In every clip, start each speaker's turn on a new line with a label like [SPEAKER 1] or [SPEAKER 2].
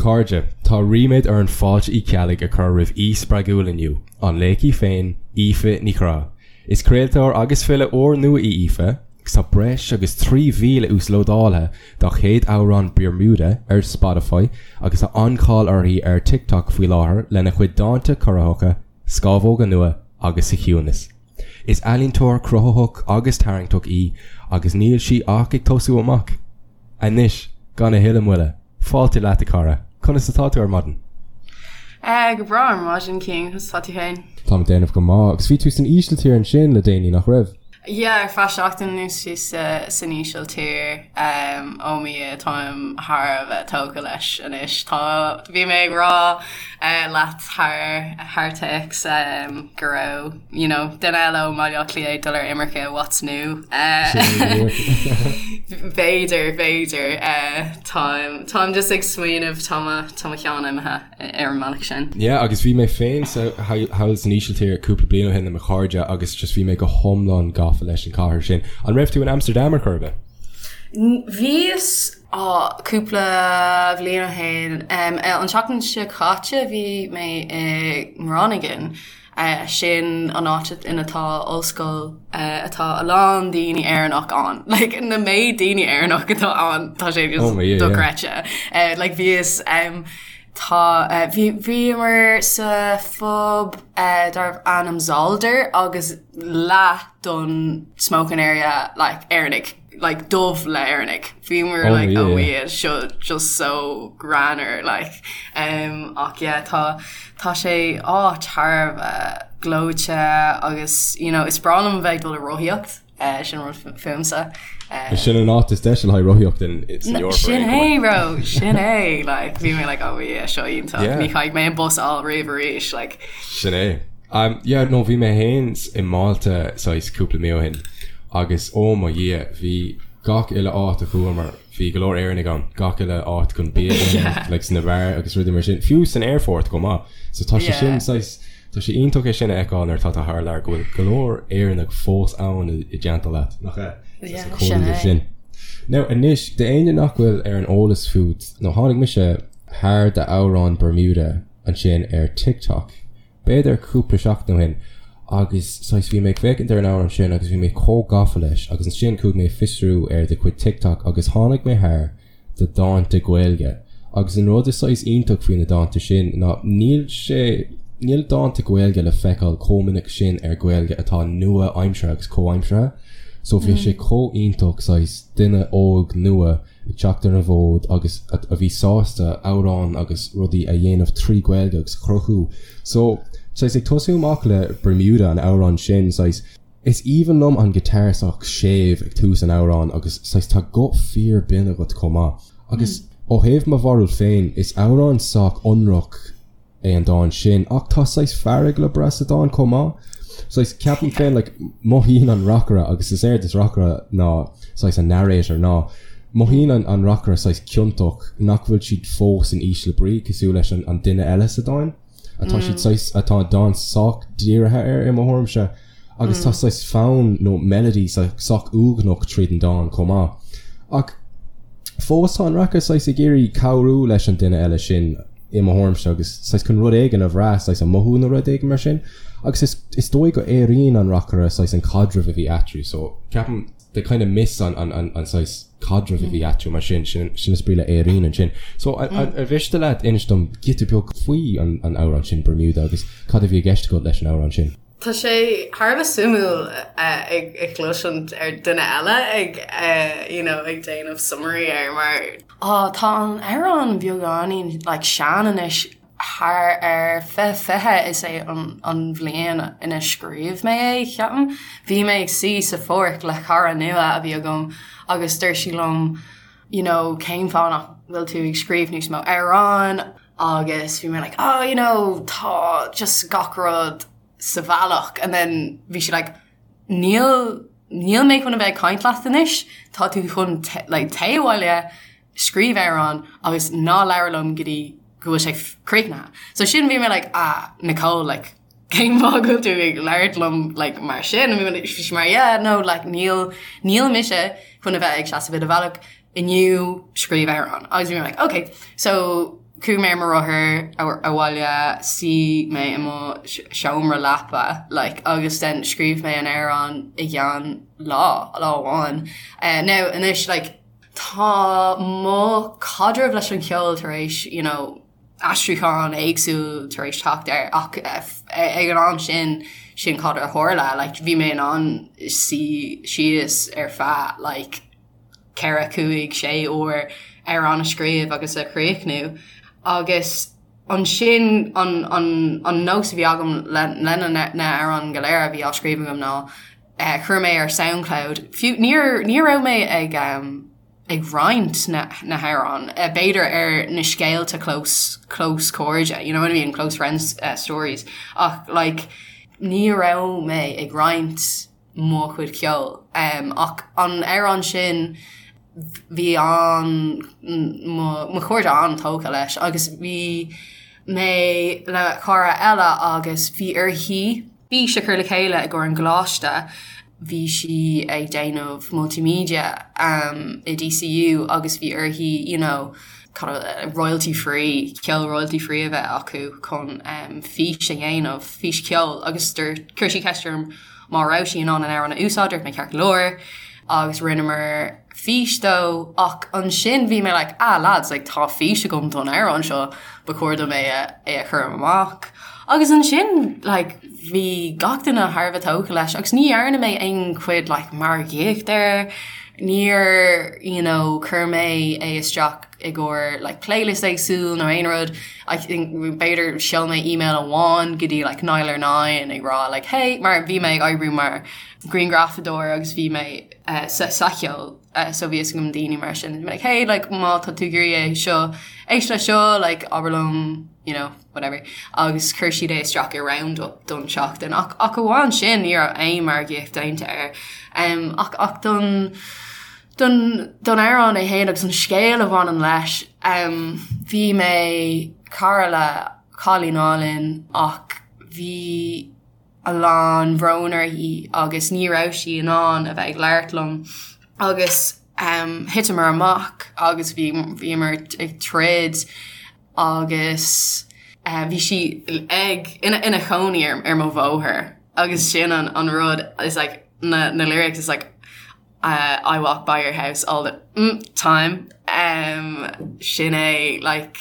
[SPEAKER 1] chairde, tá ríméad orainn Fáilte Uí Cheallaigh a chur roimh aoi spreagúil inniu, an laoch í féin, Aoife Ní Churráin. Is craoltóir agus file úrnua í Aoife, agus tá breis agus 3,000 uaslódáilte dá chéad amhrán Bermuda ar Spotify agus tá an-cháil uirthi ar TikTok faoi láthair lena cuid dánta corraitheacha, Scámhóga Nua agus Sa Chiúnas. Is ealaíontóir cruthaitheach agus tarraingteach í agus níl sí ach ag tosú amach. Anois, gan a thuilleadh moille, fáilte leat a chara, conas atá tú ar maidin?
[SPEAKER 2] Go breá ar maidin, Cian, conas atá tú féin?
[SPEAKER 1] Táim ag déanamh go maith, agus bhí tú san Ísiltír ansin le déanaí, nach raibh?
[SPEAKER 2] Yeah, ar feadh seachtain anuas bhíos san Ísiltír. Oh mo Dhia, táim thar a bheith tógtha leis anois. Tá, bhí mé ag rá leat thar, thar téacs go raibh, you know, duine eile ó mBaile Átha Cliath ag dul ar imirce, what's new? B'fhéidir, b'fhéidir. Táim, táim just ag smaoineamh, tá mo, tá mo cheann imithe. ar an mbealach sin.
[SPEAKER 1] Yeah agus bhí mé féin sa thall san Ísiltír cúpla bliain ó shin le mo chairde agus just bhí mé go hiomlán gafa leis an chathair sin. An raibh tú in Amsterdam ar chor ar bith?
[SPEAKER 2] Bhíos á cúpla bhliain ó shin. An tseachtain seo caite bhí mé i nGroningen. Sin an áit ina tá ollscoil atá a lán daoine Éireannach ann. Like na méid daoine Éireannach atá ann tá sé just oh, yeah, dochreidte. Yeah. Uh, like bhíos um, tá uh, bhí bhíomar sa phub uh, darbh ainm Zolder agus leath don smoking area like Éireannaigh. like dubh le Éireannaigh. Bhíomar oh, like yeah, oh yeah seo just so greannmhar like um, ach yeah tá tá sé áit thar a bheith gleoite agus you know is breá liom bheith ag dul ag rothaíocht uh, sin rud fúmsa.
[SPEAKER 1] Uh, sin an áit is deise le haghaidh rothaíocht in san
[SPEAKER 2] Eoraip. Sin é bro sin é like bhí mé like oh yeah seo iontach yeah. ní chaithfidh mé an bus a fháil riamh arís like
[SPEAKER 1] Sin é. Um, yeah, no, bhí mé féin i Málta saghas cúpla mí ó shin agus ó mo Dhia, bhí gach uile áit a chuamar, bhí go leor Éireannaigh ann, gach uile áit chun bia a ithe, Yeah. like sna beáir agus rudaí mar sin, fiú san aerfort chomh maith. So tá sé Yeah. sin saghas, tá sé iontach é sin a fheiceáil nuair atá tú thar lear go bhfuil go leor Éireannach fós ann i, i dteannta leat, nach ea?
[SPEAKER 2] Yeah, Sa sin
[SPEAKER 1] comhluadar é. sin. Now anois, d'éinne nach bhfuil ar an eolas fút, nó tháinig mise thar d'amhrán Bermuda ansin ar TikTok, b'fhéidir cúpla seachtain ó shin, agus saghas bhí mé ag féachaint ar an amhrán sin agus bhí mé chomh gafa leis agus ansin chuaigh mé ag fiosrú ar do chuid TikTok agus tháinig mé thar do dhánta Gaeilge agus an rud is saghas iontach faoi na dánta sin ná níl sé níl dánta Gaeilge le feiceáil chomh minic sin ar Ghaeilge atá nua-aimseartha agus comhaimseartha so bhí sé chomh iontach saghas duine óg nua ag teacht ar an bhfód agus a bhí sásta amhráin agus rudaí a dhéanamh trí Ghaeilge agus a chruthú. So, saghas ag tosú amach le Bermuda, an amhrán sin, saghas, is aoibhinn liom an guitar sách séimh ag tús an amhráin agus saghas tá guth fíor binn agat chomh maith. Agus ó thaobh mo bharúil féin, is amhrán sách ionraic é an dán sin ach tá saghas fearg le brath sa dán chomh maith. Saghas, ceapaim féin, like, mothaíonn an reacaire, agus is éard is reacaire ná saghas an narrator, ná mothaíonn an, an reacaire saghas ciontach nach bhfuil siad fós in ísle brí cosúil leis an, an duine eile sa dán. Atá siad saghas, atá an dán sách dírithe air i mo thuairimse. Agus tá saghas fonn nó melody sách uaigneach tríd an dán chomh maith. Ach fós tá an reacaire saghas ag iarraidh cabhrú leis an duine eile sin i mo thuairimse agus saghas chun rud éigin a bhrath, saghas a mothú nó rud éigin mar sin. Agus is is dóigh go airíonn an reacaire saghas an caidreamh a bhí eatarthu so ceapaim they kind of miss an an an an saghas caidreamh a bhí eatarthu mar sin, sin sin is brí le airíonn ansin. So ar mhiste leat inis dom giota beag faoi an an amhrán sin Bermuda agus cad a bhí i gceist agat leis an amhrán sin?
[SPEAKER 2] Tá sé thar a bheith suimiúil ag cloisint ar duine eile ag you know ag déanamh summary air mar oh tá an amhrán beagáinín like sean anois thar ar 2020 is é an an bhliain ina scríobh mé é ceapaim. Bhí mé ag suí sa pháirc le cara nua a bhí agam agus dúirt sí liom you know cén fáth nach bhfuil tú ag scríobh níos mó amhrán agus bhí mé like oh you know tá just gach rud sa bhealach and then bhí sí like níl níl mé chun a bheith ag caint leat anois tá tú chun like téigh abhaile scríobh amhrán agus ná labhair liom go dtí go bhfuil sé críochnaithe. So sin bhí mé like ah Nicole like cén fáth go bhfuil tú ag labhairt liom like mar sin bhí sí mar yeah no like níl níl mise chun a bheith ag seasamh i do bhealach inniu scríobh amhrán agus bhí mé like okay so. Chuaigh mé ar mo rothar abhaile, suigh mé i mo seomra leapa like agus then scríobh mé an amhrán i gceann lá, lá amháin. Now anois like tá mo chaidreamh leis an cheol tar éis you know aistriúchán éagsúil tar éis teacht air ach ag an am sin sin cad a tharla like bhí mé in ann suí síos ar feadh like 4, 5, 6 uair amhrán a scríobh agus a chríochnú agus ansin an, an, an nós a bhí agam le, le na, na hamhráin go léir a bhí á scríobh agam ná eh, chuir mé ar Soundcloud, fiú níor, ní raibh mé ag um, ag roinnt na, na hamhráin, eh, b'fhéidir ar na scéalta close, close cairde, you know what I mean, close friends uh, stories, ach like ní raibh mé ag roinnt mo chuid ceoil. Ach an amhrán sin bhí an mo chairde an-tógtha leis agus bhí mé le cara eile agus bhí uirthi fís a chur le chéile i gcomhair an choláiste, bhí sí ag déanamh multimedia i DCU agus bhí uirthi you know royalty free, ceol royalty free a bheith acu chun fís a dhéanamh, fís cheoil agus chuir sí ceist orm má raibh sí in ann an amhrán a úsáid, dúirt mé ceart go leor agus rinneamar fís dó ach ansin bhí mé like ah lads like tá fís agam don amhrán seo ba chóir dom é a é a chur amach agus ansin like bhí gach duine thar a bheith tógtha leis agus ní dhearna mé aon chuid like margaíocht air níor you know chuir mé é isteach i gcomhair like playlist éagsúil nó aon rud I think b'fhéidir sheol mé email amháin go dtí like Nialler9 ag rá like hey mar bhí mé ag oibriú mar grianghrafadóir agus bhí mé uh, sa, sa cheol uh, so bhí a fhios agam daoine mar sin like hey like má tá tú ag iarraidh é seo éist le seo like abair liom you know whatever agus chuir siad é isteach i roundup don seachtain ach ach amháin sin ní raibh aon margaíocht déanta air um, ach ach don Don don amhrán é féin agus an scéal a bhaineann leis, bhí mé cara le cailín álainn ach bhí a lán bhrón uirthi agus ní raibh sí in ann a bheith ag labhairt liom agus thiteamar amach agus bhí bhíomar ag troid agus bhí sí ag ina ina chónaí ar ar mo bhóthar agus sin an an rud is like na na lyrics is like I walk by your house all the mm time um, sin é like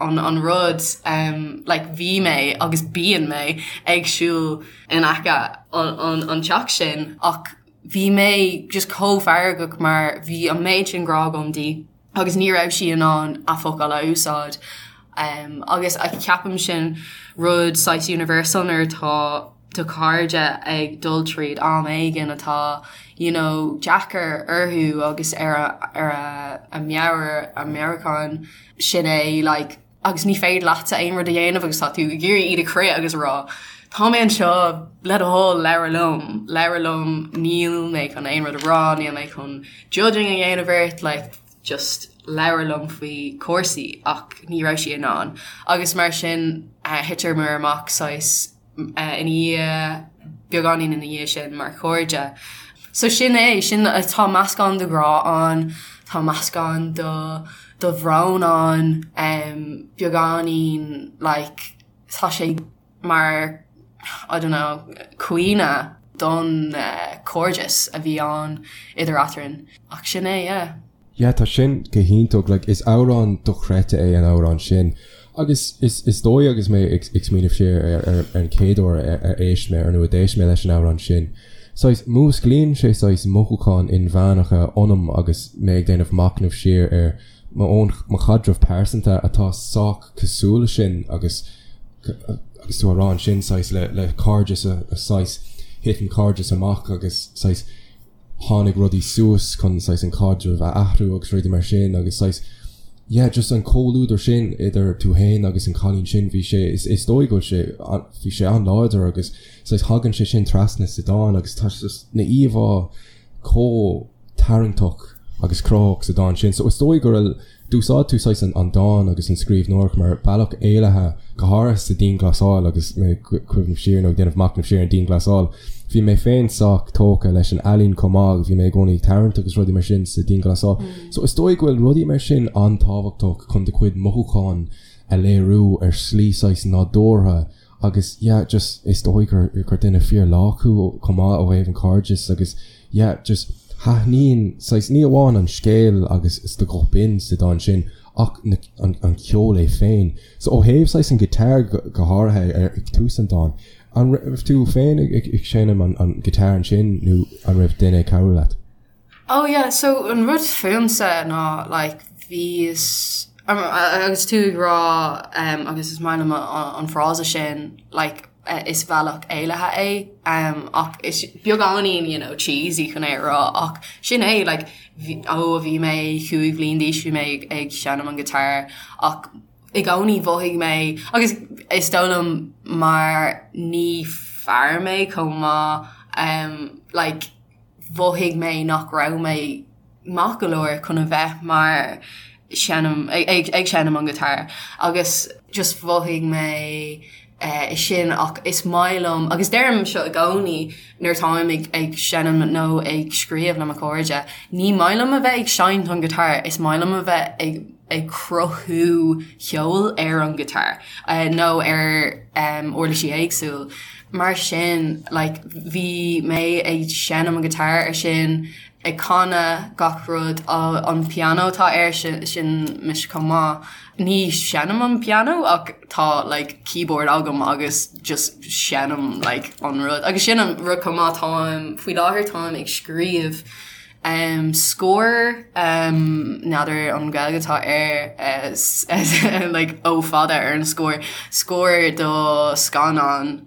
[SPEAKER 2] an an rud um, like bhí mé agus bíonn mé ag siúl in aice an an an teach sin ach bhí mé just chomh feargach mar bhí an méid sin grá agam di agus ní raibh sí in ann a focail a úsáid um, agus a ceapaim sin rud saghas universal nuair atá do chairde ag dul tríd am éigin atá you know deacair orthu agus ar a ar a a meabhair a meabhrúchán sin é like agus ní féidir leatsa aon rud a dhéanamh agus tá tú ag iarraidh iad a chrith agus a rá tá mé anseo le do thoil labhair liom labhair liom níl mé chun aon rud a rá níl mé chun judging a dhéanamh ort like just labhair liom faoi cúrsaí ach ní raibh sí in ann agus mar sin thiteamar amach saghas ina dhiaidh, beagáinín ina dhiaidh sin mar chairde. So sin é, sin, tá meascán de ghrá ann, tá meascán de de bhrón ann, beagáinín like tá sé mar I don't know caoineadh don chairdeas a bhí ann idir eadrainn. Ach sin é, yeah.
[SPEAKER 1] Yeah, tá sin go hiontach, like is amhrán dochreidte é an amhrán sin. Agus is is dóigh agus mé ag ag smaoineamh siar ar ar ar an chéad uair ar ar éist mé ar nó a d'éist mé leis an amhrán sin, saghas músclaíonn sé saghas mothúcháin inmheánacha ionam agus mé ag déanamh machnamh siar ar mo own mo chaidreamh pearsanta atá sách cosúil le sin agus agus tú á rá ansin saghas le le cairdeas a a saghas thit an cairdeas amach agus saghas tháinig rudaí suas chun saghas an caidreamh a athrú agus rudaí mar sin agus saghas yeah just an comhluadar sin idir tú fhéin agus an cailín sin bhí sé is is dóigh go bhfuil sé bhí sé an-láidir agus saghas thagann sé sin trasna sa dán agus tá just na íomhá chomh tarraingteach agus cruthaitheach sa dán sin so is dóigh go raibh D'úsáid tú saghas an dán agus an scríbhneoireacht mar bealach éalaithe, go háirithe sa dianghlasáil agus mé ag cuimhneamh siar nó ag déanamh machnamh siar ar an dianghlasáil. Bhí mé féin sách tógtha leis an ealaín chomh maith agus bhí mé i gcónaí ag tarraingt agus rudaí mar sin sa dianghlasáil. So is dóigh go bhfuil rudaí mar sin an-tábhachtach chun do chuid mothúchán. a léiriú ar shlí saghas nádúrtha agus yeah just is dóigh gur gur duine fíor lách thú chomh maith ó thaobh an cairdeas agus yeah just thaitníonn saghas ní amháin an scéal agus is do ghuth binn sa dán sin ach na an an ceol é féin. So ó thaobh saghas an guitar go go háirithe ar ag tús an dáin, an raibh tú féin ag ag seinm an an guitar ansin nó an raibh duine ag cabhrú leat?
[SPEAKER 2] Oh yeah, so an rud fúmsa ná like bhíos agus tú ag rá um, agus is maith liom an frása sin like is bealach éalaithe é um, ach is beagáinín you know, cheesy chun é a rá ach sin é like, ó bhí mé 5 bhliain d'aois bhí mé ag, ag seinm an guitar ach i gcónaí mhothaigh mé agus is dóigh liom mar ní fear mé chomh maith um, like, mhothaigh mé nach raibh mé maith go leor chun a bheith mar seinm ag ag seinm an guitar agus just mhothaigh mé eh sin ach is maith liom agus deirim seo i gcónaí nuair atáim ag ag seinm nó ag scríobh le mo chairde ní maith liom a bheith ag seinnt an guitar is maith liom a bheith ag ag cruthú ceol ar an guitar nó ar uirlisí éagsúil. Mar sin like bhí mé ag seinm an guitar ar sin, ag canadh gach rud, an pianó atá air sin, sin mise chomh maith. Ní seinnim an pianó ach tá like keyboard agam agus just seinnim like an rud. Agus sin an rud chomh maith táim, faoi láthair táim ag scríobh Scór, n'fheadar an Ghaeilge atá air like O fada ar an scór, scór do scannán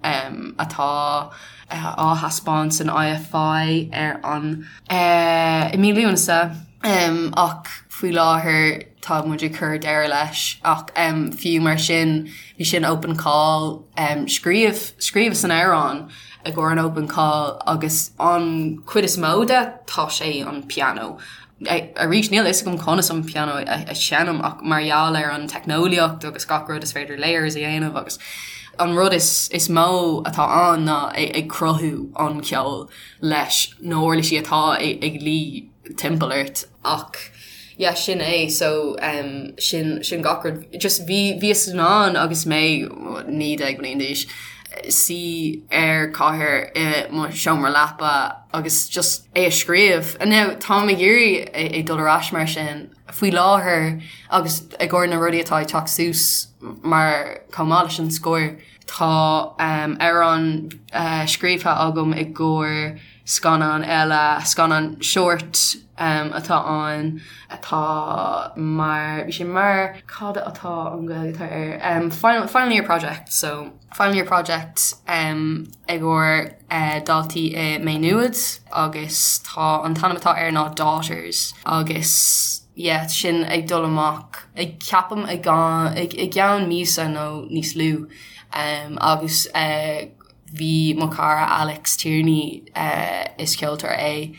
[SPEAKER 2] atá á thaispeáint san IFI ar an i mí Lúnasa ach faoi láthair tá muid ag cur deireadh leis ach fiú mar sin bhí sin open call scríobh scríobhas an amhrán i gcomhair an open call agus an chuid is mó de tá sé an pianó. Arís níl a fhios agam conas an pianó a sheinm ach mar gheall ar an teicneolaíocht agus gach rud is féidir layers a dhéanamh agus an rud is is mó atá ann ná ag cruthú an ceol leis na huirlisí atá ag luí timpeall ort ach yeah sin é so um, sin sin gach rud just bhí bhíos in ann agus mé 19 bliain d'aois suí ar cathaoir i mo seomra leapa agus just é a scríobh. And now táim ag iarraidh é, é dul ar ais mar sin faoi láthair agus i gcomhair na rudaí atá ag teacht suas mar chomh maith leis an scór tá um, amhrán uh, scríofa agam i gcomhair Scannán eile, scannán short atá ann atá mar, bhí sé mar, cad atá an Ghaeilge atá air, final, final year project, so final year project i gcomhair daltaí i Maigh Nuad agus tá an t-ainm atá air ná Daughters agus yeah sin ag dul amach ag ceapaim i gceann míosa nó níos lú agus Bhí mo chara Alex Tierney, is ceoltóir é,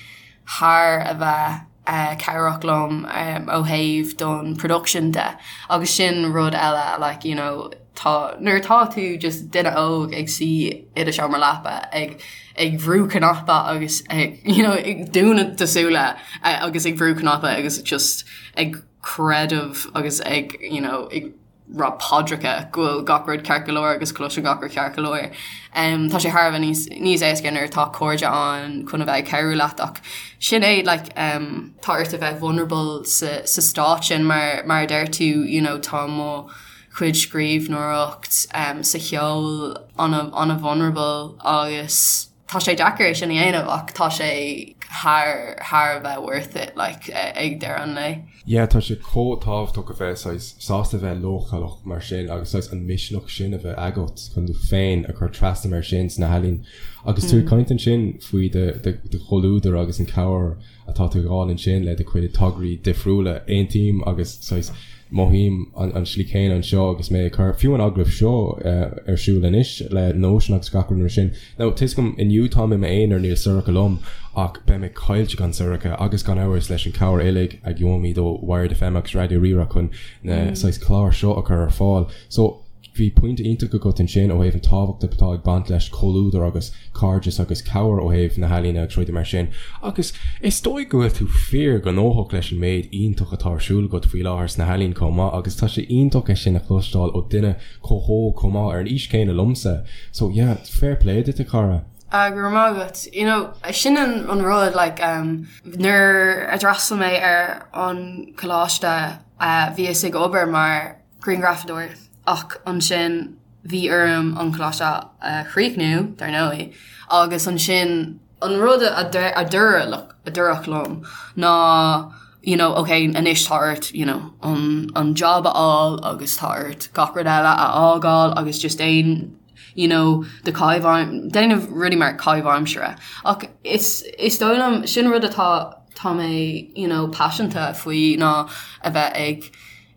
[SPEAKER 2] thar a bheith cabhrach liom ó thaobh don production de agus sin rud eile like you know tá nuair atá tú just duine óg ag suí i do seomra leapa ag ag brú cnaipe agus ag you know ag dúnadh do súile agus ag brú cnaipe agus just ag creideamh agus ag you know ag rá paidreacha go bhfuil gach rud ceart go leor agus cloiseann gach rud ceart go leor. Tá sé thar a bheith níos níos éasca nuair atá cairde ann chun a bheith ag cabhrú leat ach sin é like tá ort a bheith vulnerable sa sa stát sin mar mar a deir tú you know tá mo chuid scríbhneoireacht sa cheol ana ana vulnerable agus Tá sé deacair é sin a dhéanamh ach tá sé thar thar a bheith worth it like ag deireadh an lae.
[SPEAKER 1] Yeah tá sé chomh tábhachtach a bheith saghas sásta bheith leochaileach mar sin agus saghas an misneach sin a bheith agat chun tú féin a chur trasna mar sin sna healaíona. Agus tú ag caint ansin faoi do do chomhluadar agus an cabhair atá tú ag fháil ansin le do chuid tograí difriúla. Aontaím agus saghas mothaím an slí chéanna anseo agus mé ag cur fiú an agallamh seo ar siúl anois le Nóisean agus gach rud mar sin. Now tá 'fhios agam inniu táim i m'aonar níl Sorcha liom ach beidh mé caillte gan Sorcha agus gan amhras leis an cabhair uilig a gheobhaimid ó Wired FM agus Raidió Rí-Rá chun na saghas cláir seo a chur ar fáil. So. Bhí pointe iontach agat ansin ó thaobh an tábhacht atá ag baint leis comhluadar agus cairdeas agus cabhair ó thaobh na healaíne agus rudaí mar sin. Agus is dóigh go bhfuil tú fíor ghnóthach leis an méid iontach atá ar siúl agat faoi láthair sna healaíona chomh maith agus tá sé iontach é sin a chloisteáil ó duine chomh hóg chomh maith ar an aois chéanna liomsa. So yeah, fair play duit a chara.
[SPEAKER 2] Ah, go raibh maith agat. You know, sin an an rud like um, nuair a d'fhreastail mé ar an coláiste uh, bhíos ag obair mar grianghrafadóir ach ansin bhí orm an coláiste a chríochnú, dar ndóigh, agus ansin an rud a dúradh liom ná you know, ok, anois tá ort you know, an, an job a fháil agus tá ort gach rud eile a fhágáil agus just déan you know, do chaitheamh, déanamh rudaí mar caitheamh aimsire. Ach is, is dóigh liom, sin rud atá, tá mé you know, paiseanta faoi ná a bheith ag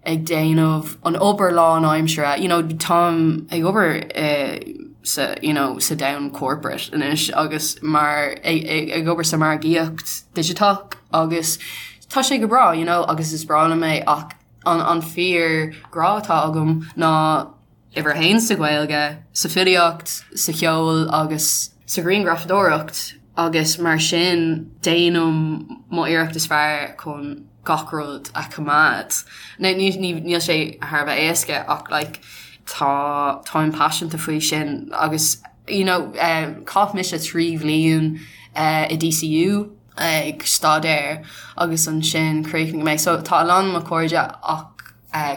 [SPEAKER 2] ag déanamh an obair lánaimsire, you know, táim ag obair i sa, you know, sa domhan corporate anois agus mar, ag, ag, ag obair sa margaíocht digiteach agus tá sé go breá, you know, agus is breá liom é ach an, an fíor grá atá agam ná uimhir a haon sa Ghaeilge, sa filíocht, sa cheol agus sa ghrianghrafadóireacht agus mar sin déanaim mo iarracht is fearr chun gach rud a choimeád. Now níl sé thar a bheith éasca ach like tá táim paiseanta faoi sin agus you know chaith mise 3 bhliain i DCU ag staidéar agus ansin chríochnaigh mé so tá a lán mo chairde ach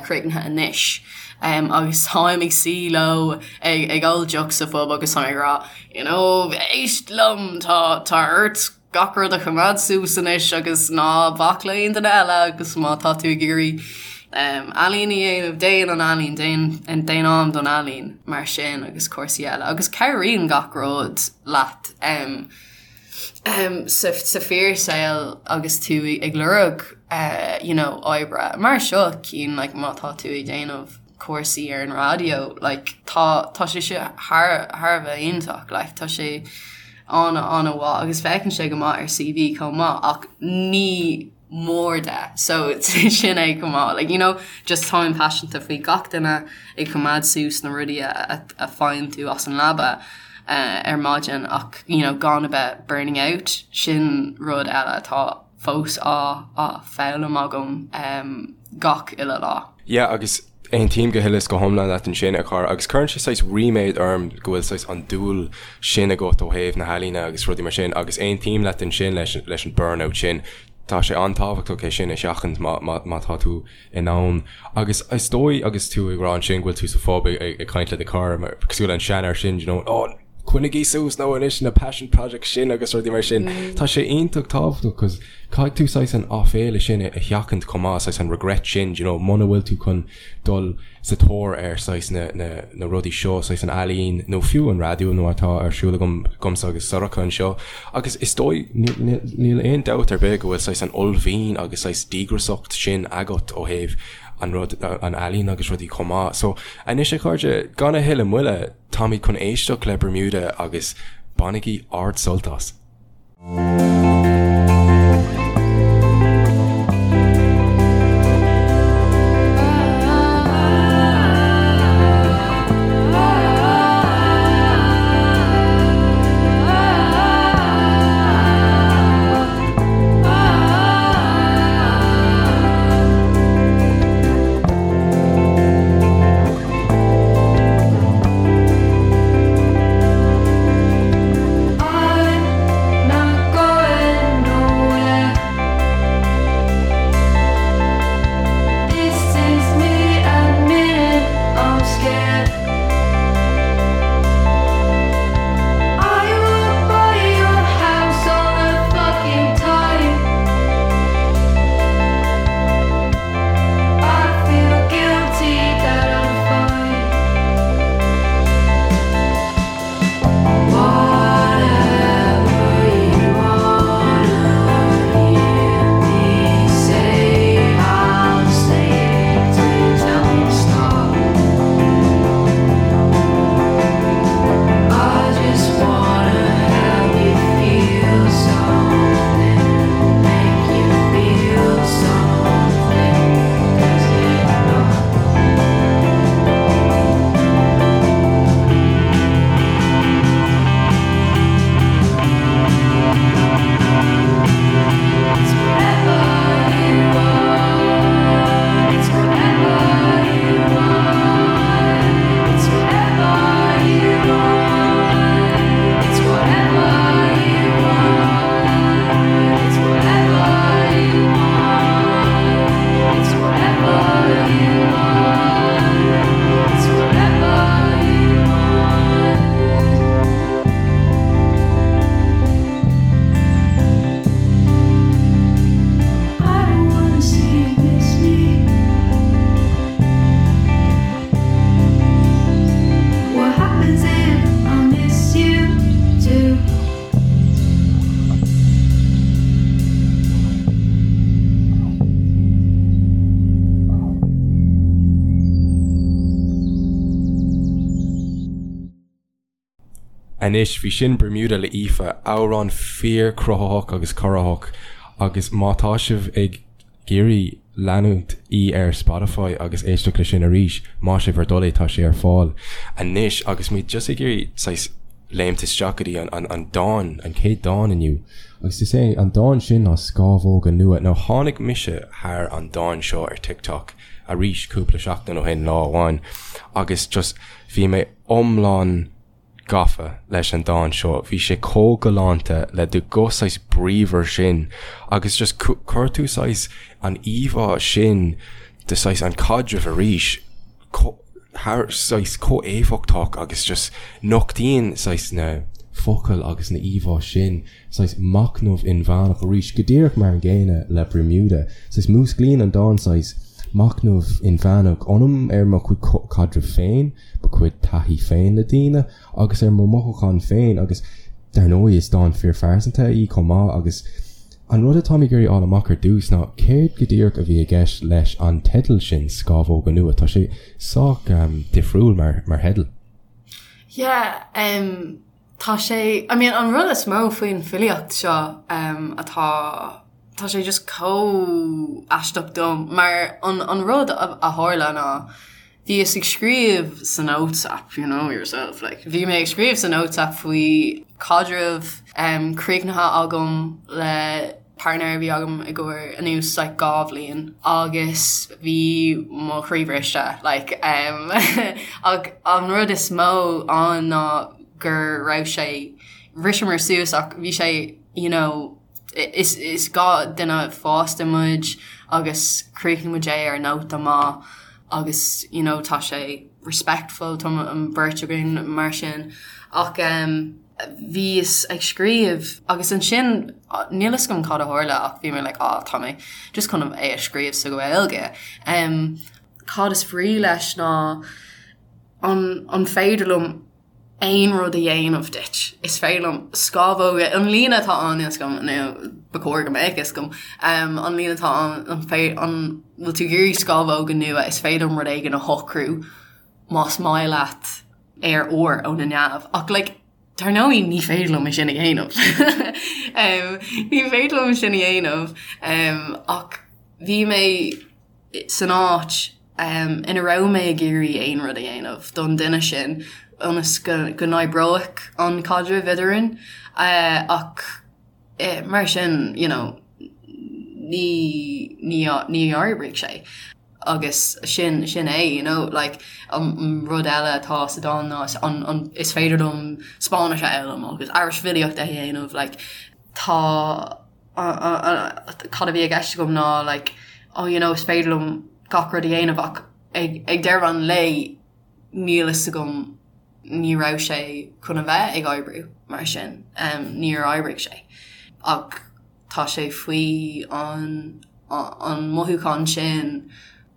[SPEAKER 2] críochnaithe anois agus táim ag suí leo ag ól deoch sa phub agus táim ag rá you know éist liom tá tá ort gach rud a choimeád suas anois agus ná bac le aon duine eile agus má tá tú ag iarraidh ealaín a dhéanamh déan an ealaín déan déan am don ealaín mar sin agus cúrsaí eile agus cabhraíonn gach rud leat um, sa fíorshaol agus tú ag lorg you know oibre mar seo cinn like má tá tú ag déanamh cúrsaí ar an raidió like tá tá sé seo thar thar a bheith iontach like tá sé an-an-mhaith agus féachann sé go maith ar CV chomh maith ach ní mór de so sin é chomh maith like you know just táim paiseanta faoi gach duine ag coimeád suas na rudaí a a faigheann tú as an leaba ar maidin ach you know gan a bheith burning out sin rud eile atá fós á á foghlaim agam um, gach uile lá.
[SPEAKER 1] Yeah agus Aontaím go huile is go hiomlán leat ansin, a chara, agus cuireann sé saghas ríméad orm go bhfuil saghas an dúil sin agat ó thaobh na healaíne agus rudaí mar sin, agus aontaím leat ansin leis leis an burnout sin, tá sé an-tábhachtach é sin a sheachaint má má má tá tú in ann. Agus is dóigh agus tú ag rá ansin go bhfuil tú sa phub ag ag caint le do chara, mar cosúil le an seanfhear sin, you know, oh, coinnigí suas nó anois na passion projects sin agus rudaí mar sin. Tá sé iontach tábhachtach cos caithfidh tú saghas an áiféala sin a sheachaint chomh maith, saghas an regret sin, do you know, muna bhfuil tú chun dul sa tóir ar saghas na, na, na rudaí seo, saghas an ealaín nó fiú an raidió nó atá ar siúl agam, agamsa agus Sorcha anseo. Agus is dóigh, níl, níl aon dabht ar bith go bhfuil saghas an uaillmhian agus saghas díograsacht sin agat ó thaobh an rud, an ealaín agus rudaí chomh maith. So, anois a chairde, gan a thuilleadh moille, Táimid chun éisteacht le Bermuda agus bainigí ard-sult as!
[SPEAKER 3] I'm not going
[SPEAKER 1] Anois, bhí sin Bermuda le Aoife, amhrán fíor-chruthaitheach agus corraitheach agus má tá sibh ag iarraidh leanúint í ar Spotify agus éisteacht le sin arís, maith sibh bhur dtoil é, tá sé ar fáil anois agus muid just ag iarraidh saghas léimt isteach go dtí an an dán, an chéad dán inniu agus is é an dán sin ná Scámhóga Nua. Now tháinig mise thar an dán seo ar TikTok arís cúpla seachtain ó shin, lá amháin, agus just bhí mé iomlán gafa leis an dán seo. Bhí sé chomh galánta le do ghuth saghas bríomhar sin agus just chuir tú saghas an íomhá sin de saghas an caidreamh arís thar saghas chomh éifeachtach agus just nochtaíonn saghas na focail agus na íomhá sin saghas machnamh inmheánach arís, go díreach mar an gcéanna le Bermuda. Saghas músclaíonn an dán saghas machnamh inmheánach ionam ar mo chuid caidreamh féin, mo chuid taithí féin le daoine agus ar mo mhothúcháin féin agus dar ndóigh is dán fíorphearsanta í chomh maith agus an rud atáim ag iarraidh fháil amach ar dtús ná céard go díreach a bhí i gceist leis an teideal sin Scámhóga Nua, tá sé sách difriúil mar mar theideal.
[SPEAKER 2] Yeah, um, Tá sé, I mean an rud is mó faoin filíocht seo atá, tá sé just chomh aisteach dom mar an an rud a tharla ná bhíos ag scríobh sa notes app, you know yourself, like bhí mé ag scríobh sa notes app faoi caidreamh críochnaithe agam le partner a bhí agam i gcomhair anuas like 2 bhliain agus bhí mo chroí briste like um ach an rud is mó ann ná go raibh sé bhriseamar suas ach bhí sé you know is is 2 duine fásta muid agus chríochnaigh muid é ar nóta maith agus you know tá sé respectful tá an beirt againn mar sin ach um bhíos ag scríobh agus ansin níl fhios agam cad a tharla ach bhí mé like ah tá mé just chun é a scríobh sa Ghaeilge. Um, cad is brí leis ná an, an féidir liom aon rud a dhéanamh duit. Is féidir liom scámhóga, an líne atá ann níl fhios agam nó ba chóir go mbeadh fhios agam, um, an líne atá ann an fé, an bhfuil tú ag iarraidh scámhóga nua is féidir liom rud éigin a shocrú más maith leat ar ór ó na neamh ach like dar ndóigh ní féidir liom é sin a dhéanamh. Ní féidir liom sin a dhéanamh ach bhí mé san áit ina raibh mé ag iarraidh aon rud a dhéanamh don duine sin ionas go n-oibreoidh an caidreamh eadrainn ach mar sin you know ní ní ní oibrigh sé. agus sin sin é you know like an rud eile atá sa dán ná an an is féidir liom Spáinnis a fhoghlaim agus aris filíocht a dhéanamh like tá cad a bhí i gceist agam ná like oh you know is féidir liom gach rud a dhéanamh ach ag ag deireadh an lae níl fhios agam ní raibh sé chun a bheith ag oibriú mar sin um, níor oibrigh sé ach tá sé faoi an an mothúchán sin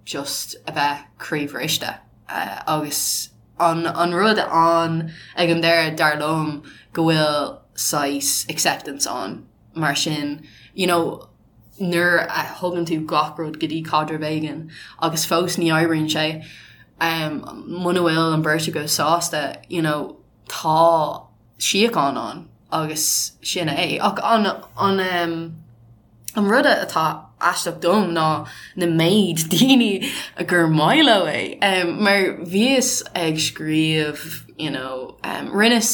[SPEAKER 2] just a bheith croíbhriste agus an an rud ann ag an deireadh dar liom go bhfuil saghas acceptance ann mar sin you know nuair a thugann tú gach rud go dtí caidreamh éigin agus fós ní oibríonn sé um, muna bhfuil an bheirt agaibh sásta you know tá síocháin ann agus sin é. Ach an an an rud atá aisteach dom ná na méid daoine gur maith leo é. Mar bhíos ag scríobh you know rinneas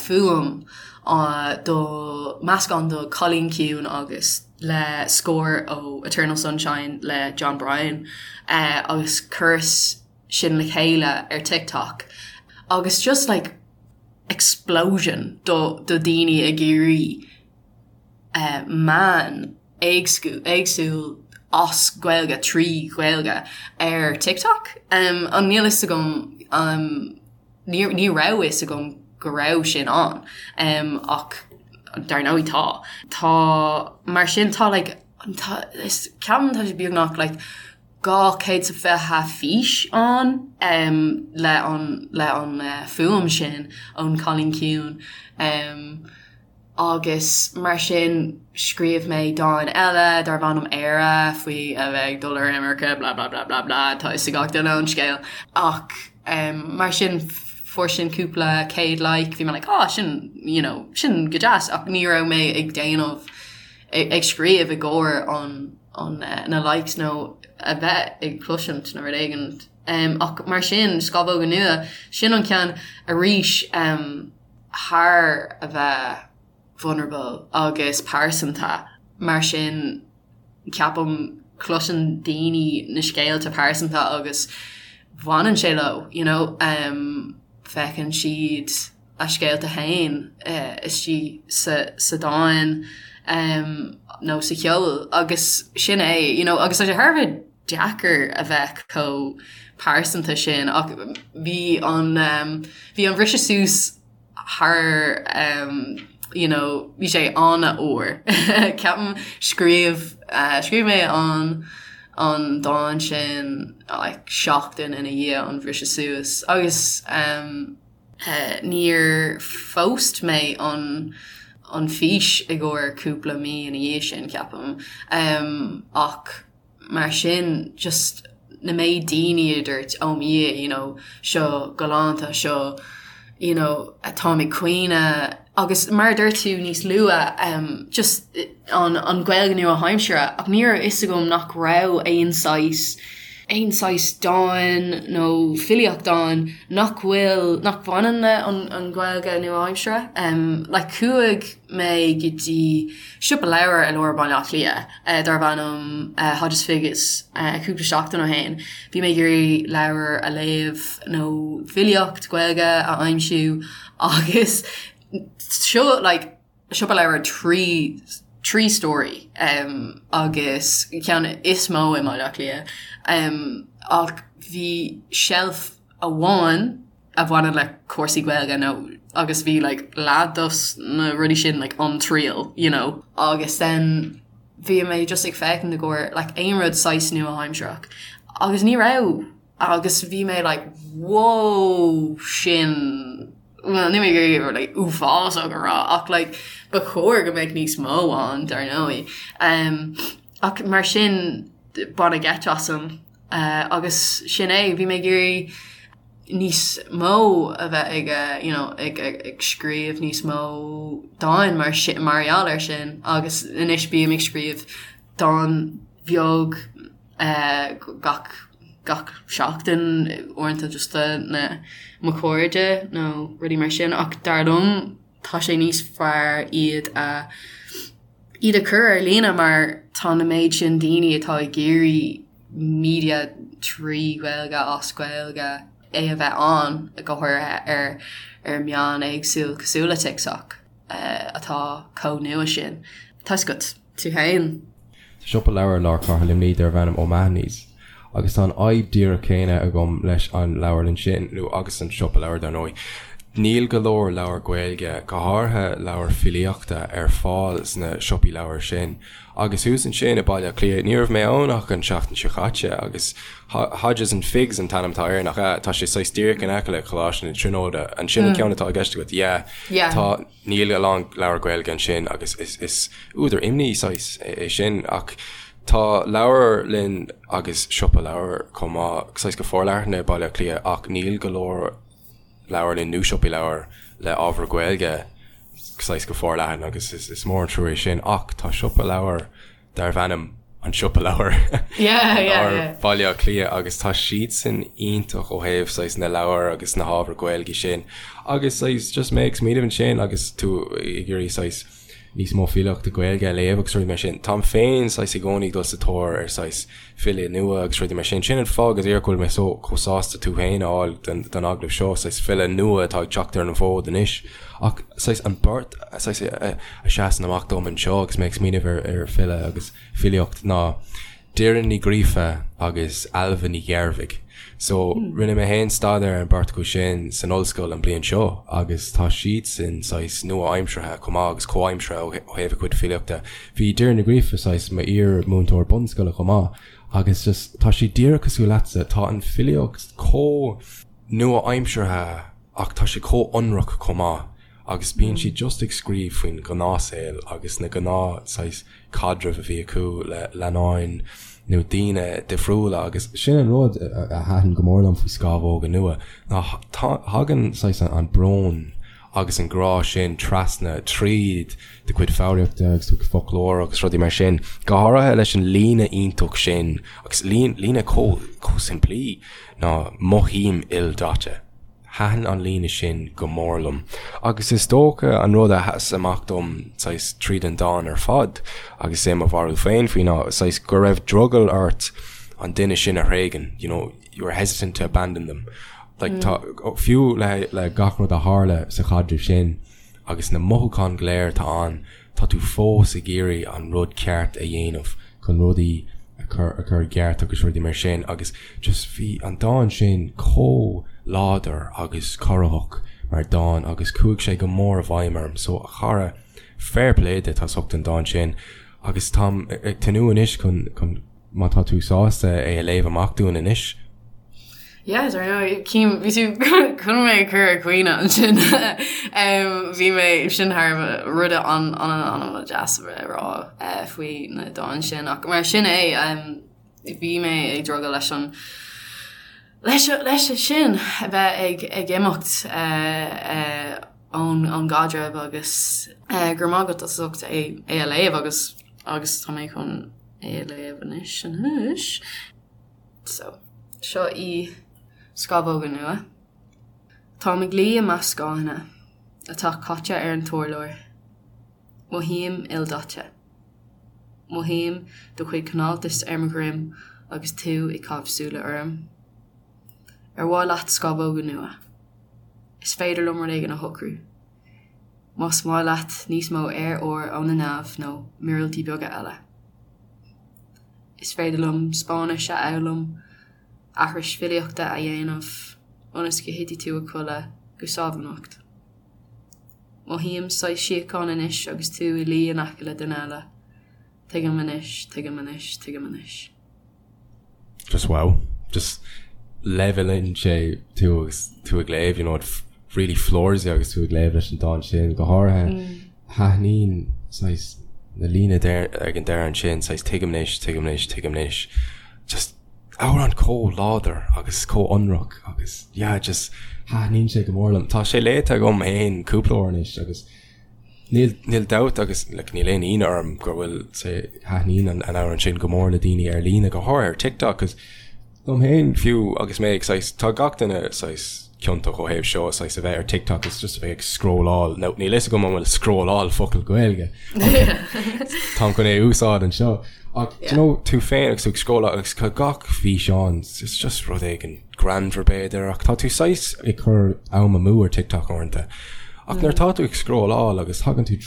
[SPEAKER 2] fuaim do meascán do Cailín Ciúin agus le scór ó Eternal Sunshine le Jon Brion agus chuireas sin le chéile ar TikTok agus just like explosion do do daoine ag iarraidh eh, meán éagsúil as Gaeilge trí Ghaeilge ar TikTok. Um, an níl fhios agam um, ní, ní raibh fhios agam go raibh sin ann um, ach dar ndóigh tá. Tá mar sin tá like, tá, is ceapaim tá sé beagnach like, 220 fís ann le an le an fuaim sin ón Cailín Ciúin agus mar sin scríobh mé dán eile darb ainm Éire faoi a bheith ag dul ar imirce blah blah blah blah blah tá fhios ag gach duine an scéal ach mar sin. fuair sin cúpla céad like, bhí mé like ah sin you know sin go deas ach ní raibh mé ag déanamh ag scríobh i gcomhair an an na likes nó a bheith ag cloisint nó rud éigin. Um, ach mar sin Scamhóga Nua, sin an ceann arís um, thar a bheith vulnerable agus pearsanta mar sin ceapaim cloiseann daoine na scéalta pearsanta agus bhaineann sé leo you know um, feiceann siad a scéalta féin uh, istigh sa, sa dán um, nó sa cheol agus sin é you know, agus tá sé thar a bheith deacair a bheith chomh pearsanta sin ach bhí an um, bhí an bhriseadh suas thar um, you know, bhí sé an-fhuar. Ceapaim scríobh uh, scríobh mé an an dán sin like, seachtain ina dhiaidh an bhriseadh suas agus um, uh, níor phóst mé an an fís i gcomhair cúpla mí ina dhiaidh sin ceapaim um, ach mar sin just na méid daoine a dúirt oh mo Dhia you know seo galánta seo you know táim ag caoineadh agus mar a dúirt tú níos luaithe um, just an, an Ghaeilge nua-aimseartha ach ní raibh fhios agam nach raibh aon saghas aon saghas dán nó filíocht ann nach bhfuil nach bhaineann le an, an Ghaeilge nua-aimseartha um, like chuaigh mé go dtí siopa leabhar i lár Baile Átha Cliath darb ainm Hodges Figgis cúpla seachtain ó shin. Bhí mé ag iarraidh leabhar a léamh nó filíocht Gaeilge a aimsiú agus seo like siopa leabhar 3 3 stóraí um, agus ceann is mó i mBaile Átha Cliath um, ach bhí shelf amháin a bhaineann le cúrsaí Gaeilge nó agus bhí like leath dos na rudaí sin like An Triail you know agus then bhí mé just ag féachaint i gcomhair like aon rud saghas nua-aimsearach agus ní raibh agus bhí mé like whoa sin well ní mé gur like uafásach a rá ach like ba chóir go mbeadh níos mó ann dar ndóigh um, ach mar sin baineadh geit asam uh, agus sin é bhí mé ag iarraidh níos mó a bheith ag you know ag ag scríobh níos mó dáin mar sin mar gheall air sin agus anois bím ag scríobh dán bheag eh, gach gach seachtain uaireanta just do na mo chairde nó rudaí mar sin ach dar liom tá sé níos fearr iad a iad a chur ar líne mar tá na méid sin daoine atá ag iarraidh media trí Ghaeilge as Gaeilge é a bheith ann go háirithe ar ar meán éagsúil cosúil le TikTok atá chomh nua sin. Tá a fhios agat, tú féin.
[SPEAKER 1] Tá siopa leabhar i lár cathair Luimnigh darb ainm O'Mahony's agus tá an fhadhb díreach céanna agam leis an leabharlann sin, nó agus an siopa leabhar dar ndóigh. Níl go leor leabhar Gaeilge, go háirithe leabhair filíochta, ar fáil sna siopaí leabhar sin. Agus thuas ansin i Baile Átha Cliath, ní raibh mé ann ach an tseachtain seo chaite, agus Hodges and Figgis an t-ainm atá air, nach ea? Tá sé saghas díreach in aice le Coláiste na Tríonóide. An sin an ceann atá i gceist agat? Yeah.
[SPEAKER 2] Yeah.
[SPEAKER 1] Tá, níl a lán leabhar Gaeilge ansin agus is, is údar imní saghas é sin. Ach tá leabharlann agus siopa leabhar chomh maith, saghas go forleathan i Baile Átha Cliath ach níl go leor leabharlann nó siopaí leabhar le ábhar Gaeilge saghas go forleathan agus is mór an trua é sin ach tá siopa leabhar darbh ainm An Siopa Leabhar i lár Bhaile Átha Cliath agus tá siadsan iontach ó thaobh saghas na leabhar agus na hábhar Gaeilge sin agus saghas just mé ag smaoineamh ansin agus tú ag iarraidh saghas níos mó filíochta Gaeilge a léamh agus rudaí mar sin. Táim féin saghas i gcónaí ag dul sa tóir ar saghas file nua agus rudaí mar sin. Sin an fáth go díreach go bhfuil mé so chomh sásta tú féin a fháil don don agallamh seo, saghas file nua atá ag teacht ar an bhfód anois. Ach saghas an bheirt saghas a a seasann amach dom anseo agus mé ag smaoineamh ar ar file agus filíocht ná Doireann Ní Ghríofa agus Ailbhe Ní Ghearbhuigh. So, rinne mé féin staidéar ar an beirt acu sin san ollscoil an bliain seo agus tá siadsan saghas nua-aimseartha chomh maith agus comhaimseartha ó thaobh a cuid filíochta. Bhí Doireann Ní Ghríofa saghas m'íar-mhúinteoir bunscoile chomh maith agus just tá sí díreach cosúil leatsa, tá an filíocht chomh nua-aimseartha ach tá sé chomh ionraic chomh maith agus bíonn sí just ag scríobh faoin ghnáthshaol agus na gnáth saghas caidrimh a bhí acu le leannáin. nó daoine difriúla agus sin an rud a thaitin go mór liom faoi Scámhóga Nua ná thagann saghas an brón agus an grá sin trasna tríd do chuid foghraíochta agus do chuid foclóir agus rudaí mar sin, go háirithe leis an líne iontach sin agus líne chomh simplí ná 'mothaím ildaite'. Thaitin an líne sin go mór liom agus is dócha an rud a sheas amach dom saghas tríd an dán ar fad agus é mo bharúil féin faoi ná saghas go raibh drogall ort an duine sin a thréigean, you know, you were hesitant to abandon them. Like tá, fiú le le gach rud a tharla sa chaidreamh sin agus na mothúcháin go léir atá ann, tá tú fós ag iarraidh an rud ceart a dhéanamh chun rudaí a chur a chur i gceart agus rudaí mar sin agus just bhí an dán sin chomh láidir agus corraitheach mar dán agus chuaigh sé go mór i bhfeidhm orm so a chara fair play duit as ucht an dán sin agus táim ag tnúth anois chun chun má tá tú sásta é a léamh amach dúinn anois.
[SPEAKER 2] Yeah, I know, Cím, bhí tú chun mé a chur ag caoineadh ansin. Bhí mé sin thar rud an-an-an-deas a rá faoi na dán sin ach mar sin é bhí mé ag drogall leis an leis leis sin a bheith ag ag imeacht ón ón gcaidreamh agus go raibh maith agat as ucht é é a léamh agus agus tá mé chun é a léamh anois anois. So, seo í Scamhóga Nua. Táim ag luí i measc scáthanna atá caite ar an t-urlár. Mothaím ildaite. Mothaím do chuid cineáltais ar mo dhroim agus tú ag caitheamh súile orm. Ar mhaith leat scamhóga nua? Is féidir liom rud éigin a shocrú. Más maith leat níos mó aer úr ó na neamh nó míorúiltí beaga eile. Is féidir liom Spáinnis a fhoghlaim, aithris filíochta a dhéanamh ionas go thitfidh tú a chodladh go sámh anocht. Mothaím saghas síocháin anois agus tú i luí in aice le duine eile. Tuigim anois, tuigim anois, tuigim anois.
[SPEAKER 1] Just wow. Just leibhéalann sé tú agus tú ag léamh, you know, it really floors you agus tú ag léamh leis an dán sin, go háirithe thaitníonn saghas na líne ag an deireadh ansin, saghas tuigim anois, tuigim anois, tuigim anois. Just amhrán chomh láidir agus chomh ionraic agus yeah, just thaitníonn sé go mór liom. Tá sé léite agam féin cúpla uair anois agus Níl, níl dabht agus like níl aon ionadh orm go bhfuil sé, thaitníonn an an amhrán sin go mór le daoine ar líne, go háirithe ar TikTok 'cause dom féin fiú agus mé ag saghas, tá gach duine saghas ciontach ó thaobh seo, saghas a bheith ar TikTok is just a bheith ag scrolláil, nó níl fhios agam an bhfuil scrolláil focal Gaeilge táim chun é a úsáid anseo ach do you know tú féin agus tú ag scrolláil agus tá gach físeán it's just rud éigin greannmhar b'fhéidir, ach tá tú saghas ag cur am amú ar TikTok uaireanta. Ach nuair atá tú ag scrolláil agus tagann tú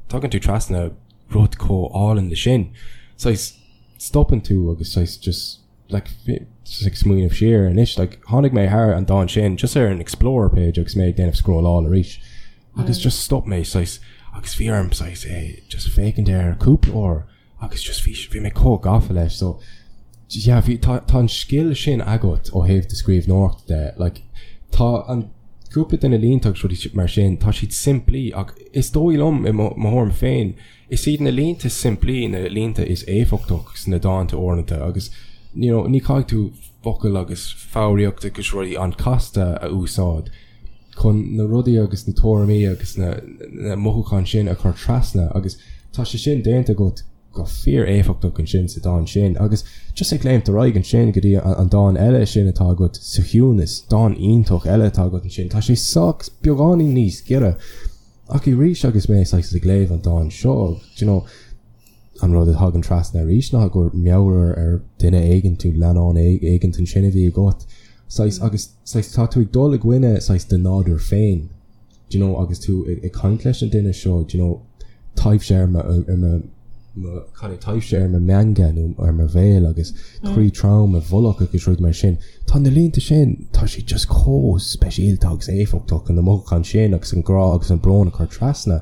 [SPEAKER 1] tagann tú trasna rud chomh álainn le sin, saghas stopann tú agus saghas just like just ag smaoineamh siar anois like tháinig mé thar an dán sin just ar an Explorer page agus mé ag déanamh scrolláil arís agus just stop mé saghas agus bhí orm saghas é just féachaint air cúpla uair agus just bhí bhí mé chomh gafa leis so yeah bhí tá tá an scil sin agat ó thaobh do scríbhneoireachta de like tá an cúpla de na línte agus rudaí mar sin tá siad simplí ach is dóigh liom i mo mo thuairim féin is iad na línte simplí na línte is éifeachtach sna dánta uaireanta agus you know ní caithfidh tú focail agus foghraíocht agus rudaí an-chasta a úsáid chun na rudaí agus na tuairimí agus na na mothúcháin sin a chur trasna agus tá sé sin déanta agat go fíor-éifeachtach ansin sa dán sin agus just ag léimt ar aghaidh ansin go dtí an dán eile sin atá agat sa chiúnas, dán iontach eile atá agat ansin, tá sé sách beagáinín níos giorra ach arís agus mé saghas ag léamh an dán seo, do you know, an rud a thagann trasna arís ná gur meabhair ar duine éigin nó leannán éigin ansin a bhí agat saghas agus saghas tá tú ag dul i gcoinne saghas do nádúr féin do you know agus tú ag caint leis an duine seo do you know taibhse ar mo ar mo mo cad é taibhse ar mo mheanga nó ar mo bhéal agus croí trom i bhfolach agus rudaí mar sin. Tá na línte sin tá siad just chomh speisialta agus éifeachtach na mothúcháin sin agus an grá agus an brón a chur trasna.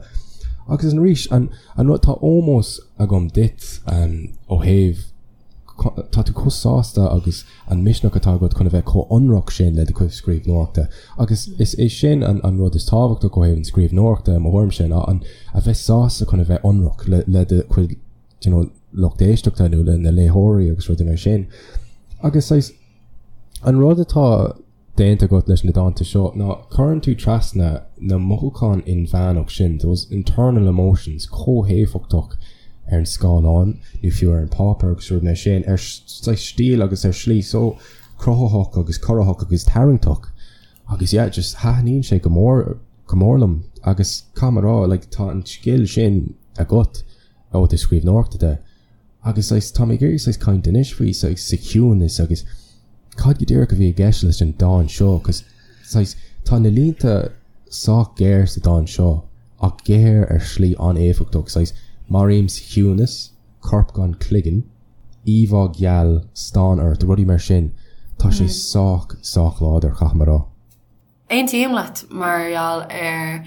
[SPEAKER 1] Agus arís an An rud, tá ómós agam duit ó thaobh, tá tú chomh sásta agus an misneach atá agat chun a bheith chomh ionraic sin le do chuid scríbhneoireachta. Agus is é sin an rud is tábhachtach ó thaobh an scríbhneoireachta i mo thuairimse ná an, a bheith sásta chun a bheith ionraic le do chuid, you know, lucht éisteachta nó le na léitheoirí agus rudaí mar sin. Agus saghas an rud atá déanta agat leis na dánta seo ná cuireann tú trasna na mothúcháin inmheánach sin, those internal emotions, chomh héifeachtach ar an scáileán nó fiú ar an páipéar agus rudaí mar sin, ar saghas stíl agus ar shlí so cruthaitheach agus corraitheach agus tarraingteach. Agus yeah, just thaitníonn sé go mór, go mór liom agus caithfidh mé a rá, like, tá an scil sin agat ó thaobh scríbhneoireachta de. Agus saghas, tá mé ag iarraidh saghas caint anois faoi saghas sa chiúnas agus cad go díreach a bhí i gceist leis an dán seo cos saghas tá na línte sách géar sa dán seo ach géar ar shlí an-éifeachtach, saghas maraím sa chiúnas, corp gan cloigeann, íomhá gheal, stán ort, rudaí mar sin, tá sé sách, sách láidir, caithfidh mé a rá.
[SPEAKER 2] Aontaím leat mar gheall ar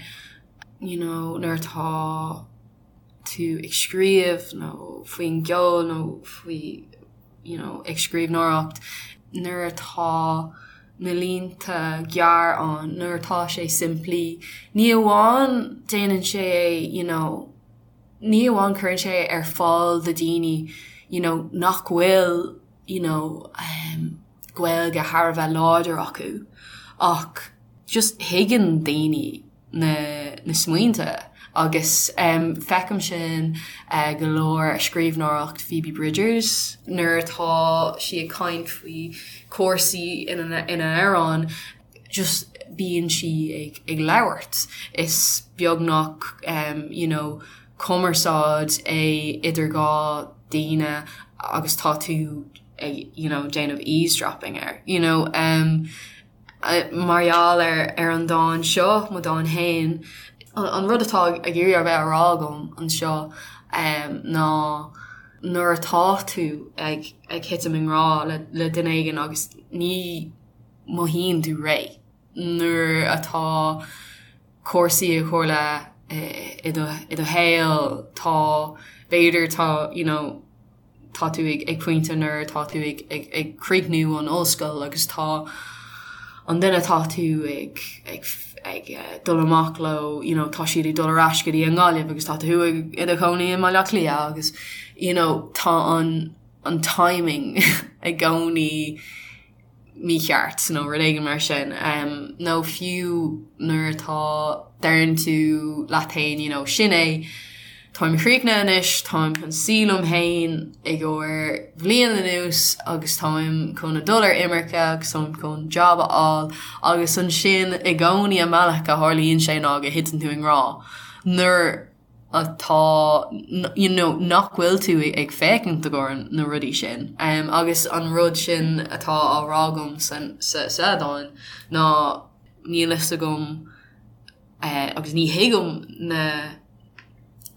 [SPEAKER 2] you know nuair atá tú ag scríobh nó faoin gceol nó faoi you know ag scríbhneoireacht nuair atá na línte gearr ann, nuair atá sé simplí, ní amháin déanann sé é you know ní amháin cuireann sé ar fáil do daoine you know nach bhfuil you know um Gaeilge thar a bheith láidir acu ach just thuigeann daoine na na smaointe agus um feicim sin uh go leor i scríbhneoireacht Phoebe Bridgers nuair atá sí ag caint faoi cúrsaí ina ina amhrán just bíonn sí ag ag labhairt is beagnach um you know cumarsáid é idir dhá daoine agus tá tú ag you know déanamh eavesdropping air you know um mar gheall ar ar an dán seo, mo dán fhéin, an rud atá ag iarraidh a bheith á rá agam anseo um ná nuair atá tú ag ag thitim i ngrá le le duine éigin agus ní mothaíonn tú réidh nuair atá cúrsaí ag tarlú i do i do shaol tá b'fhéidir tá you know tá tú ag ag pointe nuair atá tú ag ag ag críochnú an ollscoil agus tá an duine atá tú ag ag ag dul amach leo you know tá siad ag dul ar ais go dtí an Ghaillimh agus tá tú ag i do chónaí i mBaile Átha Cliath agus you know tá an an timing i gcónaí mícheart nó rud éigin mar sin. Nó fiú nuair atá, deireann tú leat fhéin you know sin é, táim críochnaithe anois, táim chun suí liom fhéin i gcomhair bhliain anuas agus táim chun a dul ar imirce agus táim chun job a fháil agus ansin i gcónaí an bealach a tharlaíonn sé ná go thiteann tú i ngrá nuair atá you know nach bhfuil tú ag féachaint i gcomhair na rudaí sin. Agus an rud sin atá á rá agam san sa sa dán ná níl fhios agam agus ní thuigim na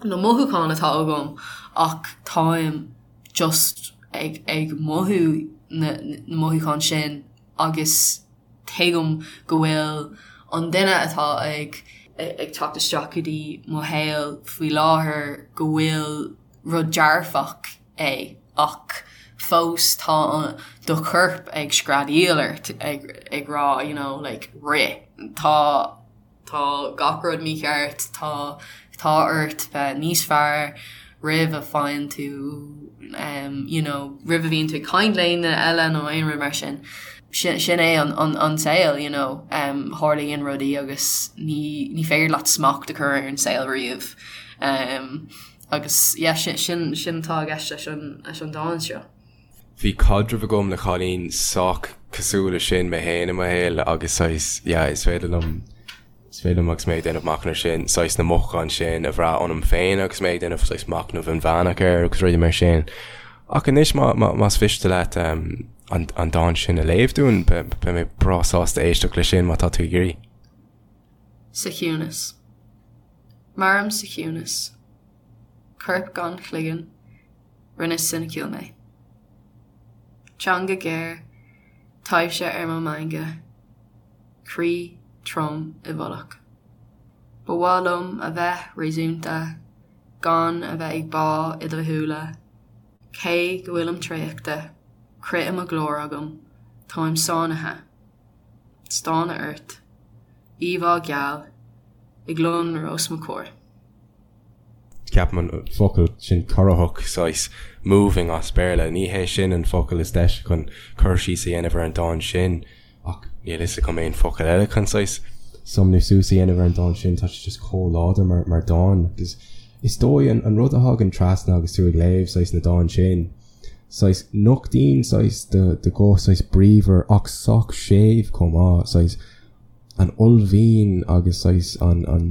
[SPEAKER 2] na mothúcháin atá agam ach táim just ag ag mothú na na mothúcháin sin agus tuigim go bhfuil an duine atá ag ag teacht isteach go dtí mo shaol faoi láthair go bhfuil rud dearfach é ach fós tá do chorp ag screadaíl ort ag ag rá you know like rith tá Tá gach rud mícheart, tá tá ort bheith níos fearr roimh a faigheann tú you know roimh a bhíonn tú ag caint le aon duine eile nó aon rud mar sin. Sin sin é an an an saol you know tarlaíonn rudaí agus ní ní féidir leat smacht a chur ar an saol riamh. Agus yeah sin sin sin atá i gceist leis an leis an dán seo.
[SPEAKER 1] Bhí caidreamh agam le cailín sách cosúil leis sin mé féin i mo shaol agus saghas, yeah, is féidir liom, is féidir liom agus mé ag déanamh machnamh sin, saghas na mothúcháin sin a bhrath ionam féin agus mé ag déanamh saghas machnamh inmheánach air agus rudaí mar sin. Ach anois má, má, más mhiste leat um, an, an dán sin a léamh dúinn, beidh mé breá sásta éisteacht leis sin má tá tú ag iarraidh.
[SPEAKER 2] Sa chiúnas. Mairim sa chiúnas. Corp gan chloigeann. Rinne soiniciúil mé. Teanga ghéar, taibhse ar mo mheangadh, croí trom i bhfolach. Ba mhaith liom a bheith réasúnta, gan a bheith ag bá i do shúile, cé go bhfuilim traochta, crith i mo ghlór agam, táim sáinnithe. Stánadh ort. Íomhá gheal, ag lonrú os mo chomhair.
[SPEAKER 1] Ceapaim an focal sin corraitheach, saghas moving as Béarla, ní hé sin an focal is deise chun cur síos a dhéanamh ar an dán sin ach níl fhios agam aon focal eile chun saghas sumnú suas a dhéanamh ar an dán sin, tá sé just chomh láidir mar mar dán agus is dóigh an an rud a thagann trasna agus tú ag léamh saghas na dán sin, saghas nochtaíonn saghas do do ghuth saghas bríomhar ach sách séimh chomh maith, saghas an uaillmhian agus saghas an an.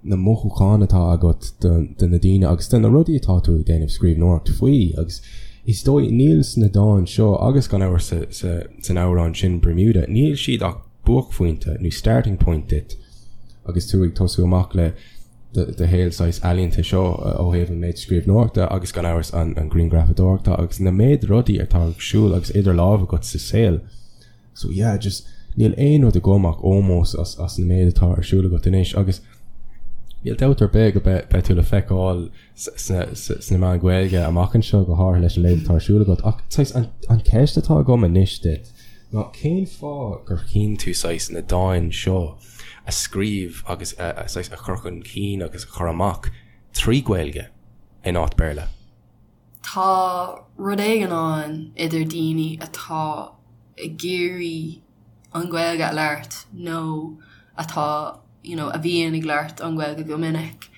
[SPEAKER 1] na mothúcháin atá agat do na daoine agus do na rudaí atá tú ag déanamh scríbhneoireacht faoi agus is dóigh níl sna dáin seo agus gan amhras san amhrán sin Bermuda, níl siad ach buaicphointe nó starting point duit agus tú ag tosú amach le do shaol saghas ealaíonta seo ó thaobh an méid scríbhneoireachta agus gan amhras an grianghrafadóireachta agus na méid rudaí atá ag siúl agus idir lámh agat sa saol. So yeah, just níl aon rud agam ach ómós as as na méid atá ar siúl agat anois agus níl dabht ar bith go beidh beidh tú le feiceáil sna sna meáin Ghaeilge amach anseo go háirithe leis an méid atá ar siúl agat ach saghas an an ceist atá agam anois duit ná cén fáth gur chinn tú saghas na dáin seo a scríobh agus a a saghas a chur chun cinn agus a chur amach trí Ghaeilge in áit Béarla?
[SPEAKER 2] Tá rud éigin ann idir daoine atá ag iarraidh an Ghaeilge a labhairt nó atá you know a bhíonn ag labhairt an Ghaeilge go minic.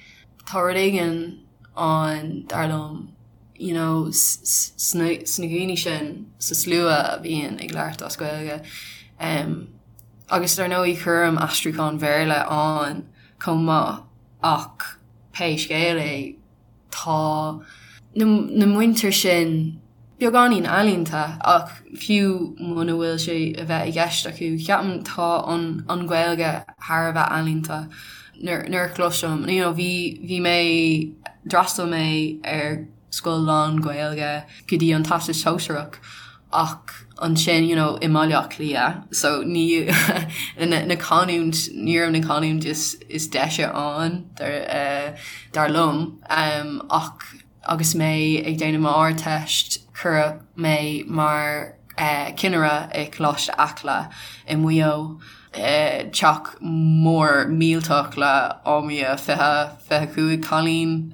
[SPEAKER 2] Tá rud éigin ann dar liom you know sna sna daoine sin sa slua a bhíonn ag labhairt as Gaeilge. Um, agus dar ndóigh cuirim aistriúchán Bhéarla ann chomh maith ach pé scéal é, Tá na muintir sin beagáinín ealaíonta ach fiú muna bhfuil sé a bheith i gceist acu, ceapaim tá an an Ghaeilge thar a bheith ealaíonta. Nuair a chloisim, you know, bhí bhí mé, d'fhreastail mé ar scoil lán-Ghaeilge go dtí an Teastas Sóisearach ach ansin you know i mBaile Átha Cliath so ní na canúint ní raibh na canúint is is deise ann dar dar liom ach agus mé ag déanamh m'Ardteist cuireadh mé mar cinnire i Coláiste Acla i Maigh Eo. Teach mór millteach le ámia 20, 25 cailín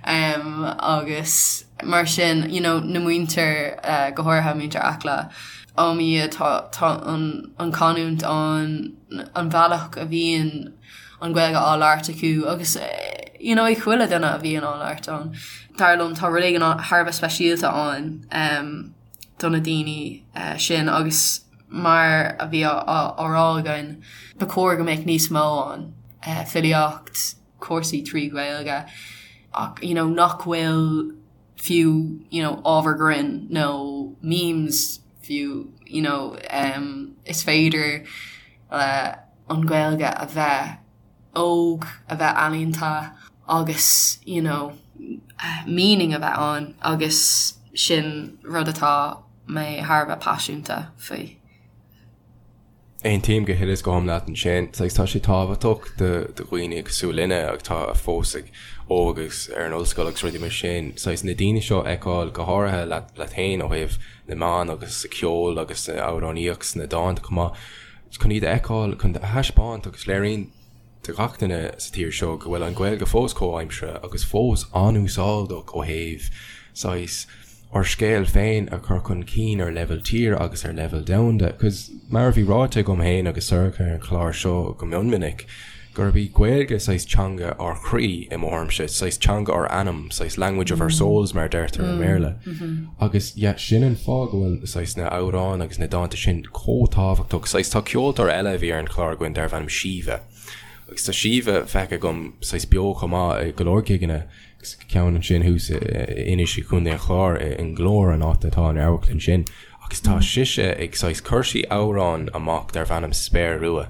[SPEAKER 2] agus mar sin you know na muintir go háirithe muintir Acla ámia tá tá an an canúint ann an bhealach a bhíonn an Ghaeilge á labhairt acu agus you know ag chuile duine a bhíonn á labhairt ann. Dar liom tá rud éigin thar a bheith speisialta ann do na daoine sin agus mar a bhí á rá againn, ba chóir go mbeadh níos mó ann, filíocht, cúrsaí trí Ghaeilge ach you know nach bhfuil fiú you know ábhar grinn nó memes fiú you know is féidir le an Ghaeilge a bheith óg, a bheith ealaíonta agus you know meaning a bheith ann agus sin rud atá mé thar a bheith paiseanta faoi.
[SPEAKER 1] Aontaím go huile is go hiomlán leat ansin. Saghas tá sé tábhachtach do dhaoine cosúil linne atá fós ag óg agus ar an ollscoil agus rudaí mar sin, saghas na daoine seo a fheiceáil go háirithe leat leat féin ó thaobh na meán agus sa cheol agus sa amhránaíocht sna dánta chomh maith, chun iad a fheiceáil, chun a thaispeáint agus léiríonn do gach duine sa tír seo go bhfuil an Ghaeilge fós comhaimseartha agus fós an-úsáideach ó thaobh saghas ár scéal féin a chur chun cinn ar leibhéal tíre agus ar leibhéal domhanda. Cos mar a bhí ráite agam féin agus Sorcha ar an chlár seo go mion minic, gurb í Gaeilge saghas teanga ár chroí i mo thuairimse, saghas teanga ár anam, saghas language of our souls mar a deirtear i mBéarla. Agus yeah, sin an fáth go bhfuil saghas na amhráin agus na dánta sin chomh tábhachtach. Saghas tá ceoltóir eile a bhí ar an chlár againn darbh ainm Síomha. Agus tá Síomha feicthe agam saghas beo chomh maith i go leor gigeanna agus ceann ansin thuas in Inis i gContae an Chláir i nGlór an áit atá an amharclann sin. Agus tá sise ag saghas chuir sí amhrán amach darbh ainm Spéir Rua.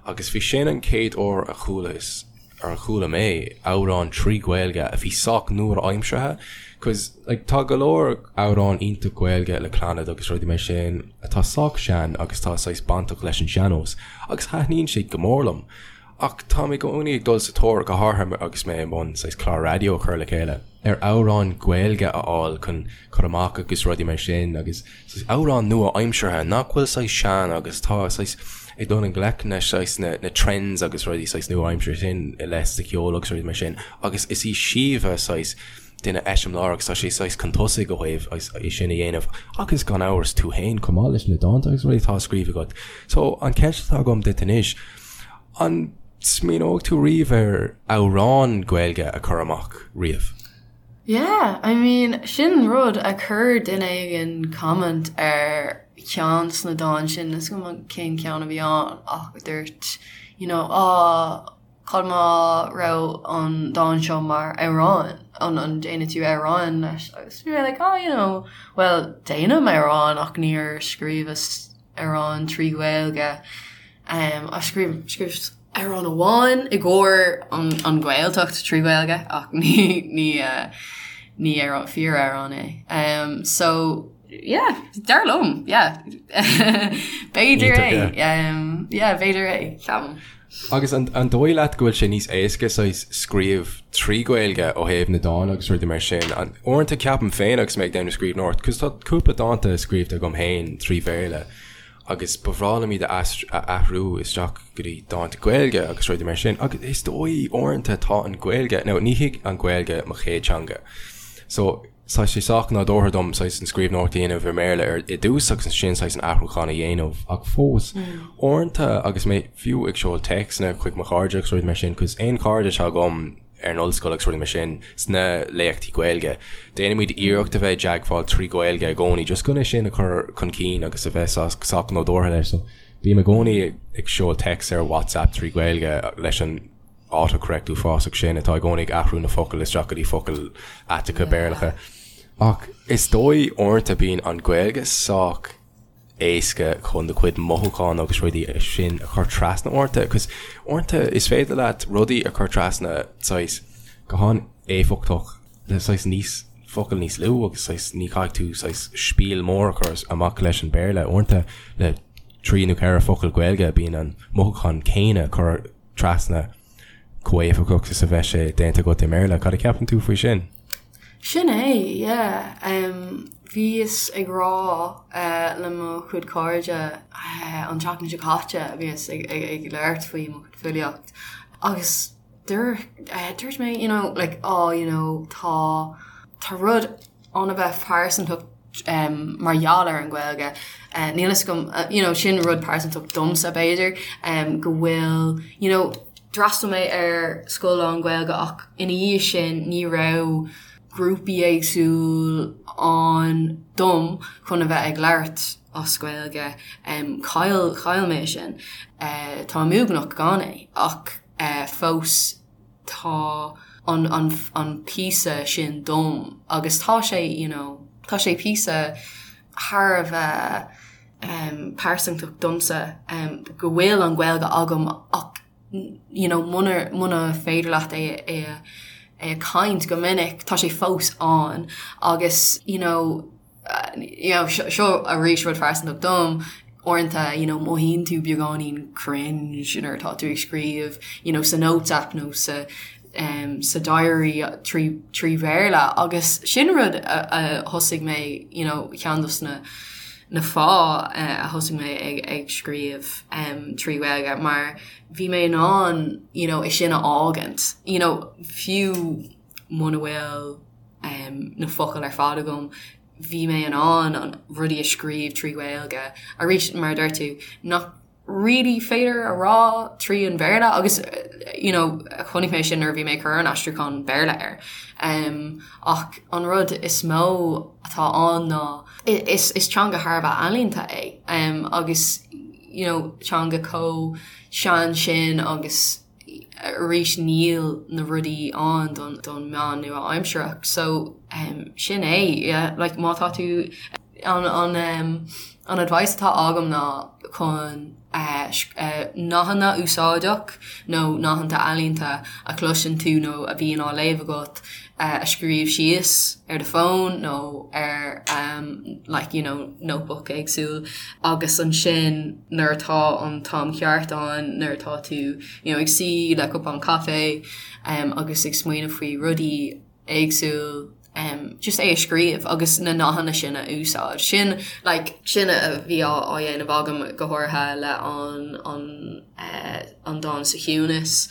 [SPEAKER 1] Agus bhí sin an chéad uair a chualas, ar a chuala mé amhrán trí Ghaeilge a bhí sách nua-aimseartha, cos like tá go leor amhrán iontach Gaeilge le Clannad agus rudaí mar sin atá sách sean agus tá saghas bainteach leis an sean-nós agus thaitníonn siad go mór liom. Ach táim i gcónaí ag dul sa tóir, go háirithe agus mé i mbun saghas clár raidió a chur le chéile, ar amhráin Ghaeilge a fháil chun cur amach agus rudaí mar sin agus saghas amhráin nua-aimseartha nach bhfuil saghas sean agus tá saghas ag dul i ngleic na saghas na na trends agus rudaí saghas nua-aimseartha sin i leith sa cheol agus rudaí mar sin agus is í Síomha saghas duine eiseamláir agus tá sí saghas chun tosaigh ó thaobh é sin a dhéanamh agus gan amhras tú féin chomh maith leis na dánta agus rudaí atá á scríobh agat. So an cheist atá agam duit anois, an smaoineoidh tú riamh ar amhrán Gaeilge a chur amach riamh?
[SPEAKER 2] Yeah, I mean sin rud a chuir duine éigin comment ar cheann de na dáin sin, níl 'fhios agam cén ceann a bhí ann ach dúirt you know, ah, Cad má raibh an dán seo mar amhrán, an an déanfaidh tú amhrán leis? Agus bhí mé like oh you know, bhuel déanaim amhrán ach níor scríobhas amhrán trí Ghaeilge. Um, a scríobh scríobhas amhrán amháin i gcomhair an an Ghaeltacht trí Ghaeilge ach ní ní uh, ní amhrán fíor amhrán é. Um, so yeah, dar liom, yeah. B'fhéidir é, um, yeah, b'fhéidir é, ceapaim.
[SPEAKER 1] Agus an dóigh leat go bhfuil sé níos éasca saghas scríobh trí Ghaeilge ó thaobh na dán agus rudaí mar sin? Uaireanta ceapaim féin agus mé ag déanamh scríbhneoireacht, cos tá cúpla dánta scríobhta agam féin trí Bhéarla agus ba bhreá liom iad a athrú isteach go dtí dánta Gaeilge agus rudaí mar sin agus is dóigh uaireanta tá an Ghaeilge, now ní hí an Ghaeilge mo chéad teanga so Tá sé sách nádúrtha dom saghas an scríbhneoireacht a dhéanamh i mBéarla ar i dtús agus ansin saghas an athrúchán a dhéanamh ach fós, uaireanta agus mé fiú ag seoladh téacsanna chuig mo chairde agus rudaí mar sin, cos aon chairde atá agam ar an ollscoil agus rudaí mar sin sna léachtaí Gaeilge, déanaimid iarracht a bheith i dteagmháil trí Ghaeilge i gcónaí just chun é sin a chur chun cinn agus a bheith sách nádúrtha leis. So bím i gcónaí ag seoladh téacs ar WhatsApp trí Ghaeilge leis an autocorrect uafásach sin atá i gcónaí ag athrú na focail isteach go dtí focail aiteacha Béarlacha. Ach is dóigh uaireanta bíonn an Ghaeilge sách éasca chun do chuid mothúchán agus rudaí sin a chur trasna uaireanta, cos uaireanta is féidir leat rudaí a chur trasna saghas go han-éifeachtach le saghas níos focail níos lú agus saghas ní chaithfidh tú saghas spiel mór a chur amach leis an Béarla. Uaireanta le trí nó ceithre focal Gaeilge bíonn an mothúchán céanna curtha trasna chomh héifeachtach is a bheadh sé déanta agat i mBéarla. Cad a cheapann tú faoi sin?
[SPEAKER 2] Sin é, yeah. Bhíos ag rá le mo chuid cairde an tseachtain seo caite, bhíos ag labhairt faoi mo chuid filíocht agus dúirt mé, you know, like, oh, you know, tá, tá rud ann a bheith pearsantach mar gheall ar an Ghaeilge. Níl fhios agam, you know, sin rud pearsantach domsa b'fhéidir, go bhfuil, you know, d'fhreastail mé ar scoil lán-Ghaeilge ach ina dhiaidh sin ní raibh grúpaí éagsúil ann dom chun a bheith ag labhairt as Gaeilge. Chaill, chaill mé sin. Táim uaigneach gan é ach fós tá an an an píosa sin dom agus tá sé you know tá sé píosa thar a bheith um pearsantach domsa um go bhfuil an Ghaeilge agam ach you know muna muna féidir leat é é é a caint go minic tá sé fós ann agus you know you know, seo arís rud phearsantach dom, uaireanta, you know, mothaíonn tú beagáinín cringe nuair atá tú ag scríobh, you know, sa notes app nó sa um, sa diary trí, trí Bhéarla agus sin rud a, a thosaigh mé, you know, ceann dos na na fáth uh, a thosaigh mé ag, ag scríobh um, trí Ghaeilge mar bhí mé in ann, you know, é sin a fhágaint, you know, fiú muna bhfuil um, na focail ar fad agam, bhí mé in ann an rudaí a scríobh trí Ghaeilge. Arís, mar a deir tú, nach really féidir a rá trí an Bhéarla agus you know, chonaic mé sin nuair a bhí mé ag cur an aistriúchán Béarla air. Um, ach an rud is mó atá ann ná is, is teanga thar a bheith ealaíonta é um, agus you know, teanga chomh sean sin agus arís níl na rudaí ann don don meán nua-aimsearach so um, sin é yeah, like, má tá tú An an um, an advice atá agam ná chun uh, uh, nathanna úsáideach nó nathanna ealaíonta a chloiseann tú nó a bhíonn á léamh agat uh, a scríobh síos ar do fón nó ar um, like, you know, notebook éagsúil agus ansin nuair atá an t-am ceart ann nuair atá tú you know, ag suí le cupán caife um, agus ag smaoineamh faoi rudaí éagsúil um, just é a scríobh agus na nathanna sin a úsáid. Sin like, sin a bhí á á dhéanamh agam go háirithe le an an uh, an dán sa chiúnas.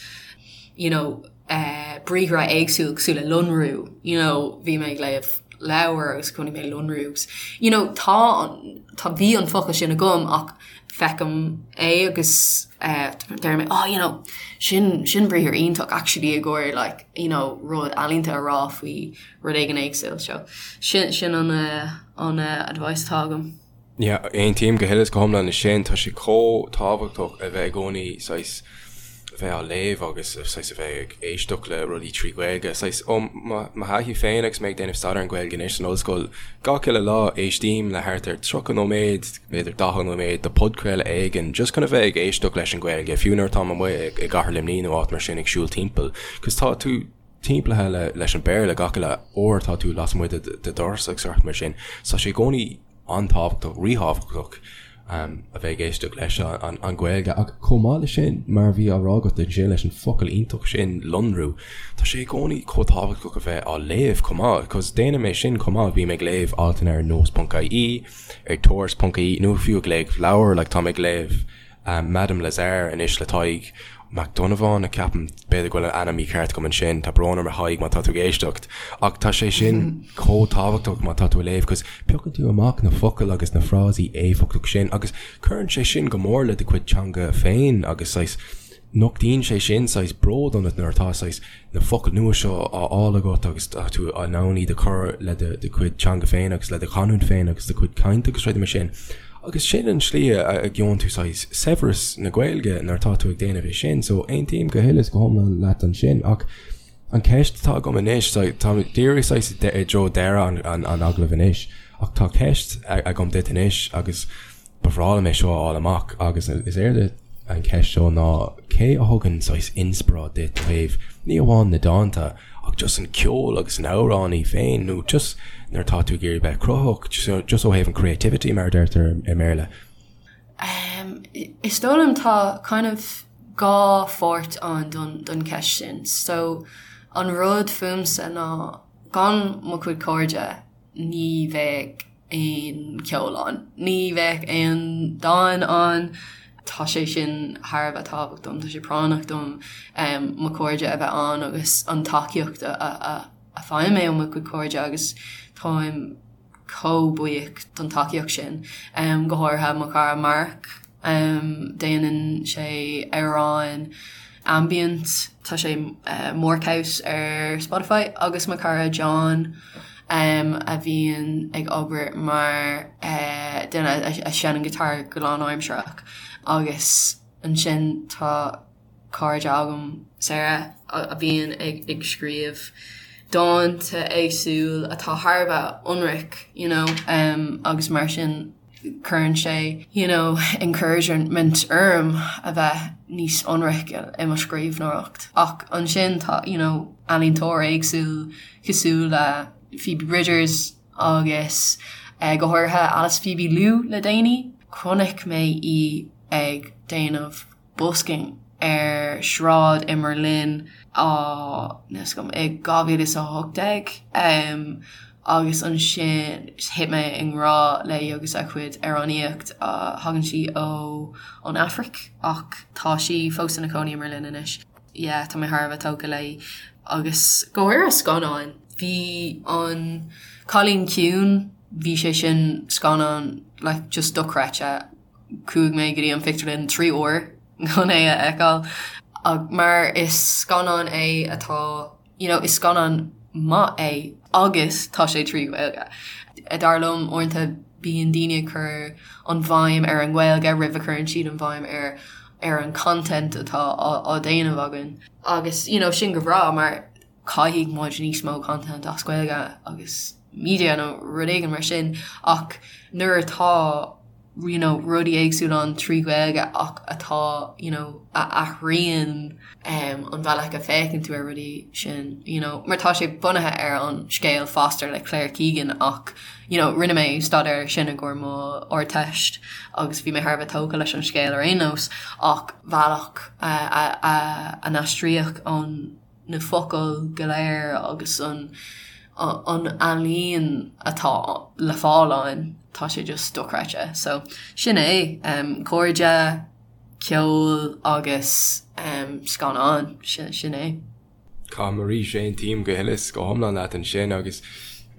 [SPEAKER 2] You know, uh, briathra éagsúil cosúil le lonrú, you know, bhí mé ag léamh leabhar agus chonaic mé lonrú agus you know, tá tá bhí an focal sin agam ach feicim é agus uh, deir mé oh, you know, sin sin briathar iontach actually i gcomhair like, you know, rud ealaíonta a rá faoi rud éigin éagsúil so sin sin an uh, an uh, advice atá agam.
[SPEAKER 1] Yeah, aontaím go huile is go hiomlán leis sin, tá sé chomh tábhachtach a bheith i gcónaí saghas a bheith á léamh agus saghas a bheith ag éisteacht le rudaí trí Ghaeilge. Saghas ó mo thaithí féin agus mé ag déanamh staidéar ar an Ghaeilge anois san ollscoil, gach uile lá éistím le thart ar 30 nóiméad, b'fhéidir 40 nóiméad de podchraoladh éigin just chun a bheith ag éisteacht leis an Ghaeilge, fiú nuair atáim amuigh i gCathair Luimnigh nó áit mar sin ag siúl timpeall, 'cause tá tú timpeallaithe leis an Béarla gach uile uair atá tú lasmuigh de do dhoras agus rudaí mar sin. So tá sé i gcónaí an-tábhachtach, ríthábhachtach a bheith ag éisteacht leis an Ghaeilge. Ach chomh maith leis sin, mar a bhí á rá agat ansin leis an focal iontach sin, lonrú, tá sé i gcónaí chomh tábhachtach a bheith á léamh chomh maith, 'cause déanaim é sin chomh maith, bím ag léamh altanna ar nós.ie, ar tuairisc.ie nó fiú ag léamh leabhar, like táim ag léamh Madame Lazare anois le Tadhg Mac Donnabháin, ceapaim, b'fhéidir go bhfuil an ainm mícheart agam ansin, tá brón orm a Thaidhg má tá tú ag éisteacht, ach tá sé sin chomh tábhachtach má tá tú ag léamh 'cause piocann tú amach na focail agus na frásaí éifeachtach sin agus cuireann sé sin go mór le do chuid teanga féin agus saghas nochtaíonn sé sin saghas bród ionat nuair atá saghas na focail nua seo á fháil agat agus tá tú in ann iad a chur le do chuid teanga féin agus le do chanúint féin agus do chuid cainte agus rudaí mar sin. Agus sin an tslí a gheobhann tú saghas saibhreas na Gaeilge nuair atá tú ag déanamh é sin. So aontaím go huile is go hiomlán leat ansin ach an ceist atá agam anois, tá díreach saghas i dtreo deireadh an agallaimh anois ach tá ceist agam duit anois agus Ba bhreá liom é seo a fháil amach agus is éard an cheist seo ná cé a thugann saghas inspioráid duit ó thaobh ní amháin na dánta ach just an ceol agus an amhránaí féin nó just nuair atá tú ag iarraidh bheith cruthaitheach just ó thaobh an creativity mar a deirtear i mBéarla.
[SPEAKER 2] Is dóigh liom tá kind of dhá pháirt ann don don cheist sin. So an rud fúmsa ná gan mo chuid cairde ní bheadh aon cheol ann. Ní bheadh aon dán ann. Tá sé sin thar a bheith tábhachtach dom, tá sé práinneach dom mo chairde a bheith ann agus an tacaíocht a fhaighim mé ó mo chuid cairde agus táim chomh buíoch don tacaíocht sin, go háirithe mo chara Mark. Déanann sé amhráin ambient, tá sé Markhouse ar Spotify, agus mo chara John a bhíonn ag obair mar duine a sheinneann guitar go lánaimsearach agus ansin tá cairde agam, Sarah, a bhíonn ag scríobh dánta éagsúil atá thar a bheith ionraic you know agus mar sin cuireann sé you know encouragement orm a bheith níos ionraice i mo scríbhneoireacht. Ach ansin tá you know ealaíontóir éagsúil cosúil le Phoebe Bridgers agus go háirithe Alice Phoebe Lou le déanaí. Chonaic mé í ag déanamh busking ar sráid i mBerlin á níl 's agam i 2018 agus ansin thit mé i ngrá léi agus a cuid amhránaíocht. Thagann sí ó ón Afraic ach tá sí fós ina cónaí i mBerlin anois. Yeah tá mé thar a bheith tógtha léi agus go háirithe scannáin. Bhí an Cailín Ciúin, bhí sé sin scannán like just dochreidte. Chuaigh mé go dtí an phictiúrlann 3 uair chun é a fheiceáil mar is scannán é atá you know is scannán maith é agus tá sé trí Ghaeilge. Dar liom uaireanta bíonn daoine ag cur an bhéim ar an nGaeilge roimh a chuireann siad an bhéim ar ar an content atá á déanamh againn. Agus you know sin go breá mar caithfidh muid níos mó content as Gaeilge agus. media nó rud éigin mar sin ach nuair atá you know rudaí éagsúla ann trí Ghaeilge ach atá you know a athraíonn um an bhealach a féachann tú ar rudaí sin you know mar tá sé bunaithe ar an scéal Foster le Claire Keegan ach you know rinne mé staidéar sin i gcomhair mo Ardteist agus bhí mé thar a bheith tógtha leis an scéal ar aon nós ach bhealach a a a a n-aistríodh an na focail go léir agus an an ealaín atá le fáil ann, tá sé just dochreidte. So sin é, um, cairde, ceol agus um, scannáin, sin, sin é.
[SPEAKER 1] Caithfidh arís aontaím go huile is go hiomlán leat ansin agus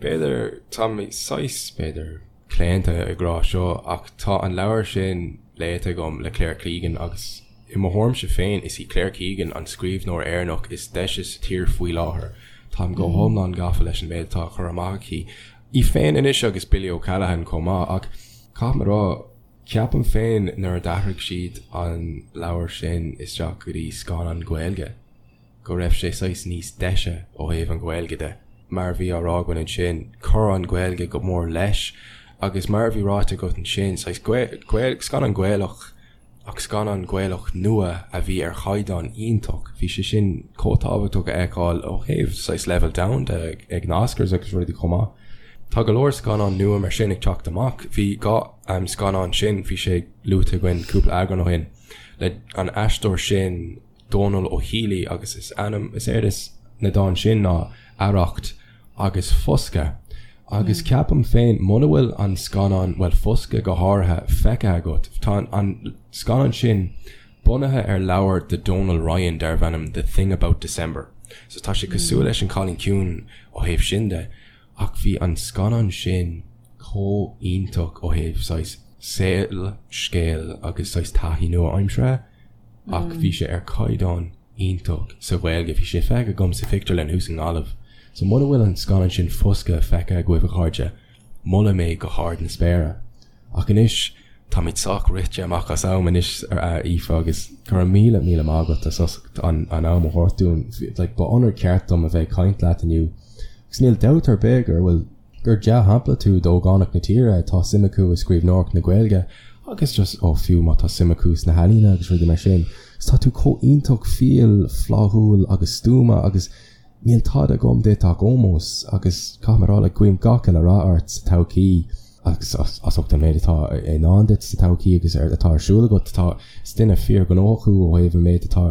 [SPEAKER 1] b'fhéidir tá mé saghas, b'fhéidir, claonta ag rá seo ach tá an leabhar sin léite agam le Claire Keegan agus I mo thuairimse féin, is í Claire Keegan an scríbhneoir Éireannach is deise sa tír faoi láthair. Táim go hiomlán gafa leis an méid atá á chur amach aici. Í féin anois agus Billy O'Callaghan chomh maith, ach caithfidh mé a rá, ceapaim féin nuair a d'athraigh siad an leabhar sin isteach go dtí scannán Gaeilge, go raibh sé saghas níos deise ó thaobh an Ghaeilge de. Mar a bhí á rá againn ansin, chuir an Ghaeilge go mór leis agus mar a bhí ráite agat ansin, saghas scannán Gaelach ach scannán Gaelach nua a bhí ar chaighdeán iontach. Bhí sé sin chomh tábhachtach a fheiceáil ó thaobh saghas leibhéal domhanda ag na Oscars agus rudaí chomh maith. Tá go leor scannán nua mar sin ag teacht amach. Bhí an scannán sin, bhí sé luaite againn cúpla eagrán ó shin, le an aisteoir sin Dónal Ó Héalaí agus is ainm, is éard is na dán sin ná Arracht agus Foscadh. Agus ceapaim féin, muna bhfuil an scannán, bhuel Foscadh go háirithe, feicthe agat, tá an scannán sin bunaithe ar leabhar de Donal Ryan darbh ainm The Thing About December. So tá sé cosúil leis An Cailín Ciúin ó thaobh sin de, ach bhí an scannán sin chomh iontach ó thaobh saghas saol, scéal agus saghas taithí nua-aimseartha. Ach bhí sé ar chaighdeán iontach sa Ghaeilge. Bhí sé feicthe agam sa phictiúrlann thuas i nGaillimh. So muna bhfuil an scannán sin Foscadh feicthe agaibh a chairde, molaim é go hard na spéire. Ach anois, táimid sách rite amach as am anois a Aoife agus go raibh míle míle maith agat as ucht an am a thabhairt dúinn. Like ba onóir ceart dom a bheith ag caint leat inniu. Agus níl dabht ar bith gur bhfuil gur dea-shampla tú d'ógánaigh na tíre atá suim acu i scríbhneoireacht na Gaeilge agus just, ó fiú má tá suim acu sna healaíona agus rudaí mar sin. Agus tá tú chomh iontach fial, fláithiúil agus stuama agus níl tada agam duit ach ómós agus caithfidh mé a rá like guím gach uile rath ort sa todhchaí agus as ucht an méid atá i ndán duit sa todhchaí agus atá ar siúl agat. Tá, is duine fíorghnóthach thú ó thaobh an méid atá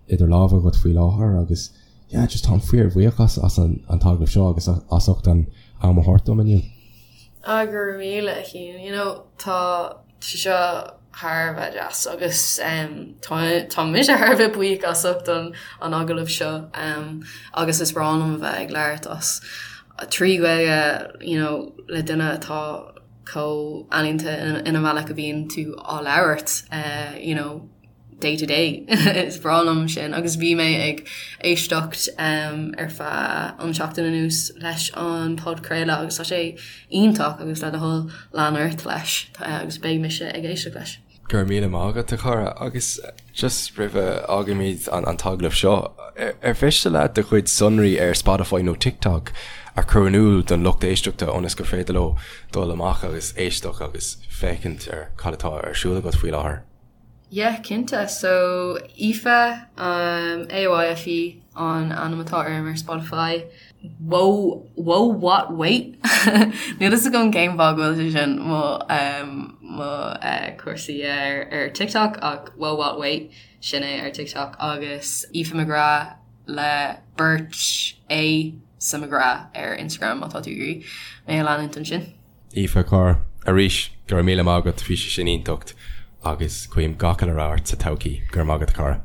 [SPEAKER 1] idir lámha agat faoi láthair agus yeah just táim fíorbhuíoch as as an an t-agallamh seo agus as ucht an am a thabhairt dom inniu.
[SPEAKER 2] Ah go raibh míle a Chian, you know tá sé seo thar a bheith deas agus um, tá tá mise thar a bheith buíoch as ucht an an agallamh seo um, agus is breá liom a bheith ag labhairt as trí Ghaeilge you know, le duine atá chomh ealaíonta ina bhealach a bhíonn tú á labhairt uh, you know, day to day. Is breá liom sin agus bhí mé ag éisteacht ar feadh an seachtain anuas leis an podchraoladh agus tá sé iontach agus le do thoil lean ort leis agus beidh mise ag éisteacht leis.
[SPEAKER 1] Go raibh míle maith agat a chara agus just roimh a fhágaimid an t-agallamh seo, ar mhiste leat do chuid sonraí ar Spotify nó TikTok a chur in iúl don lucht éisteachta ionas gur féidir leo dul amach agus éisteacht agus féachaint ar cad atá ar siúl agat faoi láthair?
[SPEAKER 2] Yeah, cinnte. So, Aoife, um, A-O-I-F-E an ainm atá orm ar Spotify. Whoa, whoa, what, wait? Níl fhios agam cén fáth go bhfuil sé sin mo, um, mo uh, cúrsaí ar, ar TikTok ach whoa, what, wait, sin é ar TikTok agus Aoife McGrath le beirt A sa McGrath ar Instagram má tá tú ag iarraidh mé a leanúint ansin.
[SPEAKER 1] Aoife, a chara, arís, go raibh míle maith agat, bhí sé sin iontach agus guím gach uile rath ort sa todhchaí. Go raibh maith agat, a chara.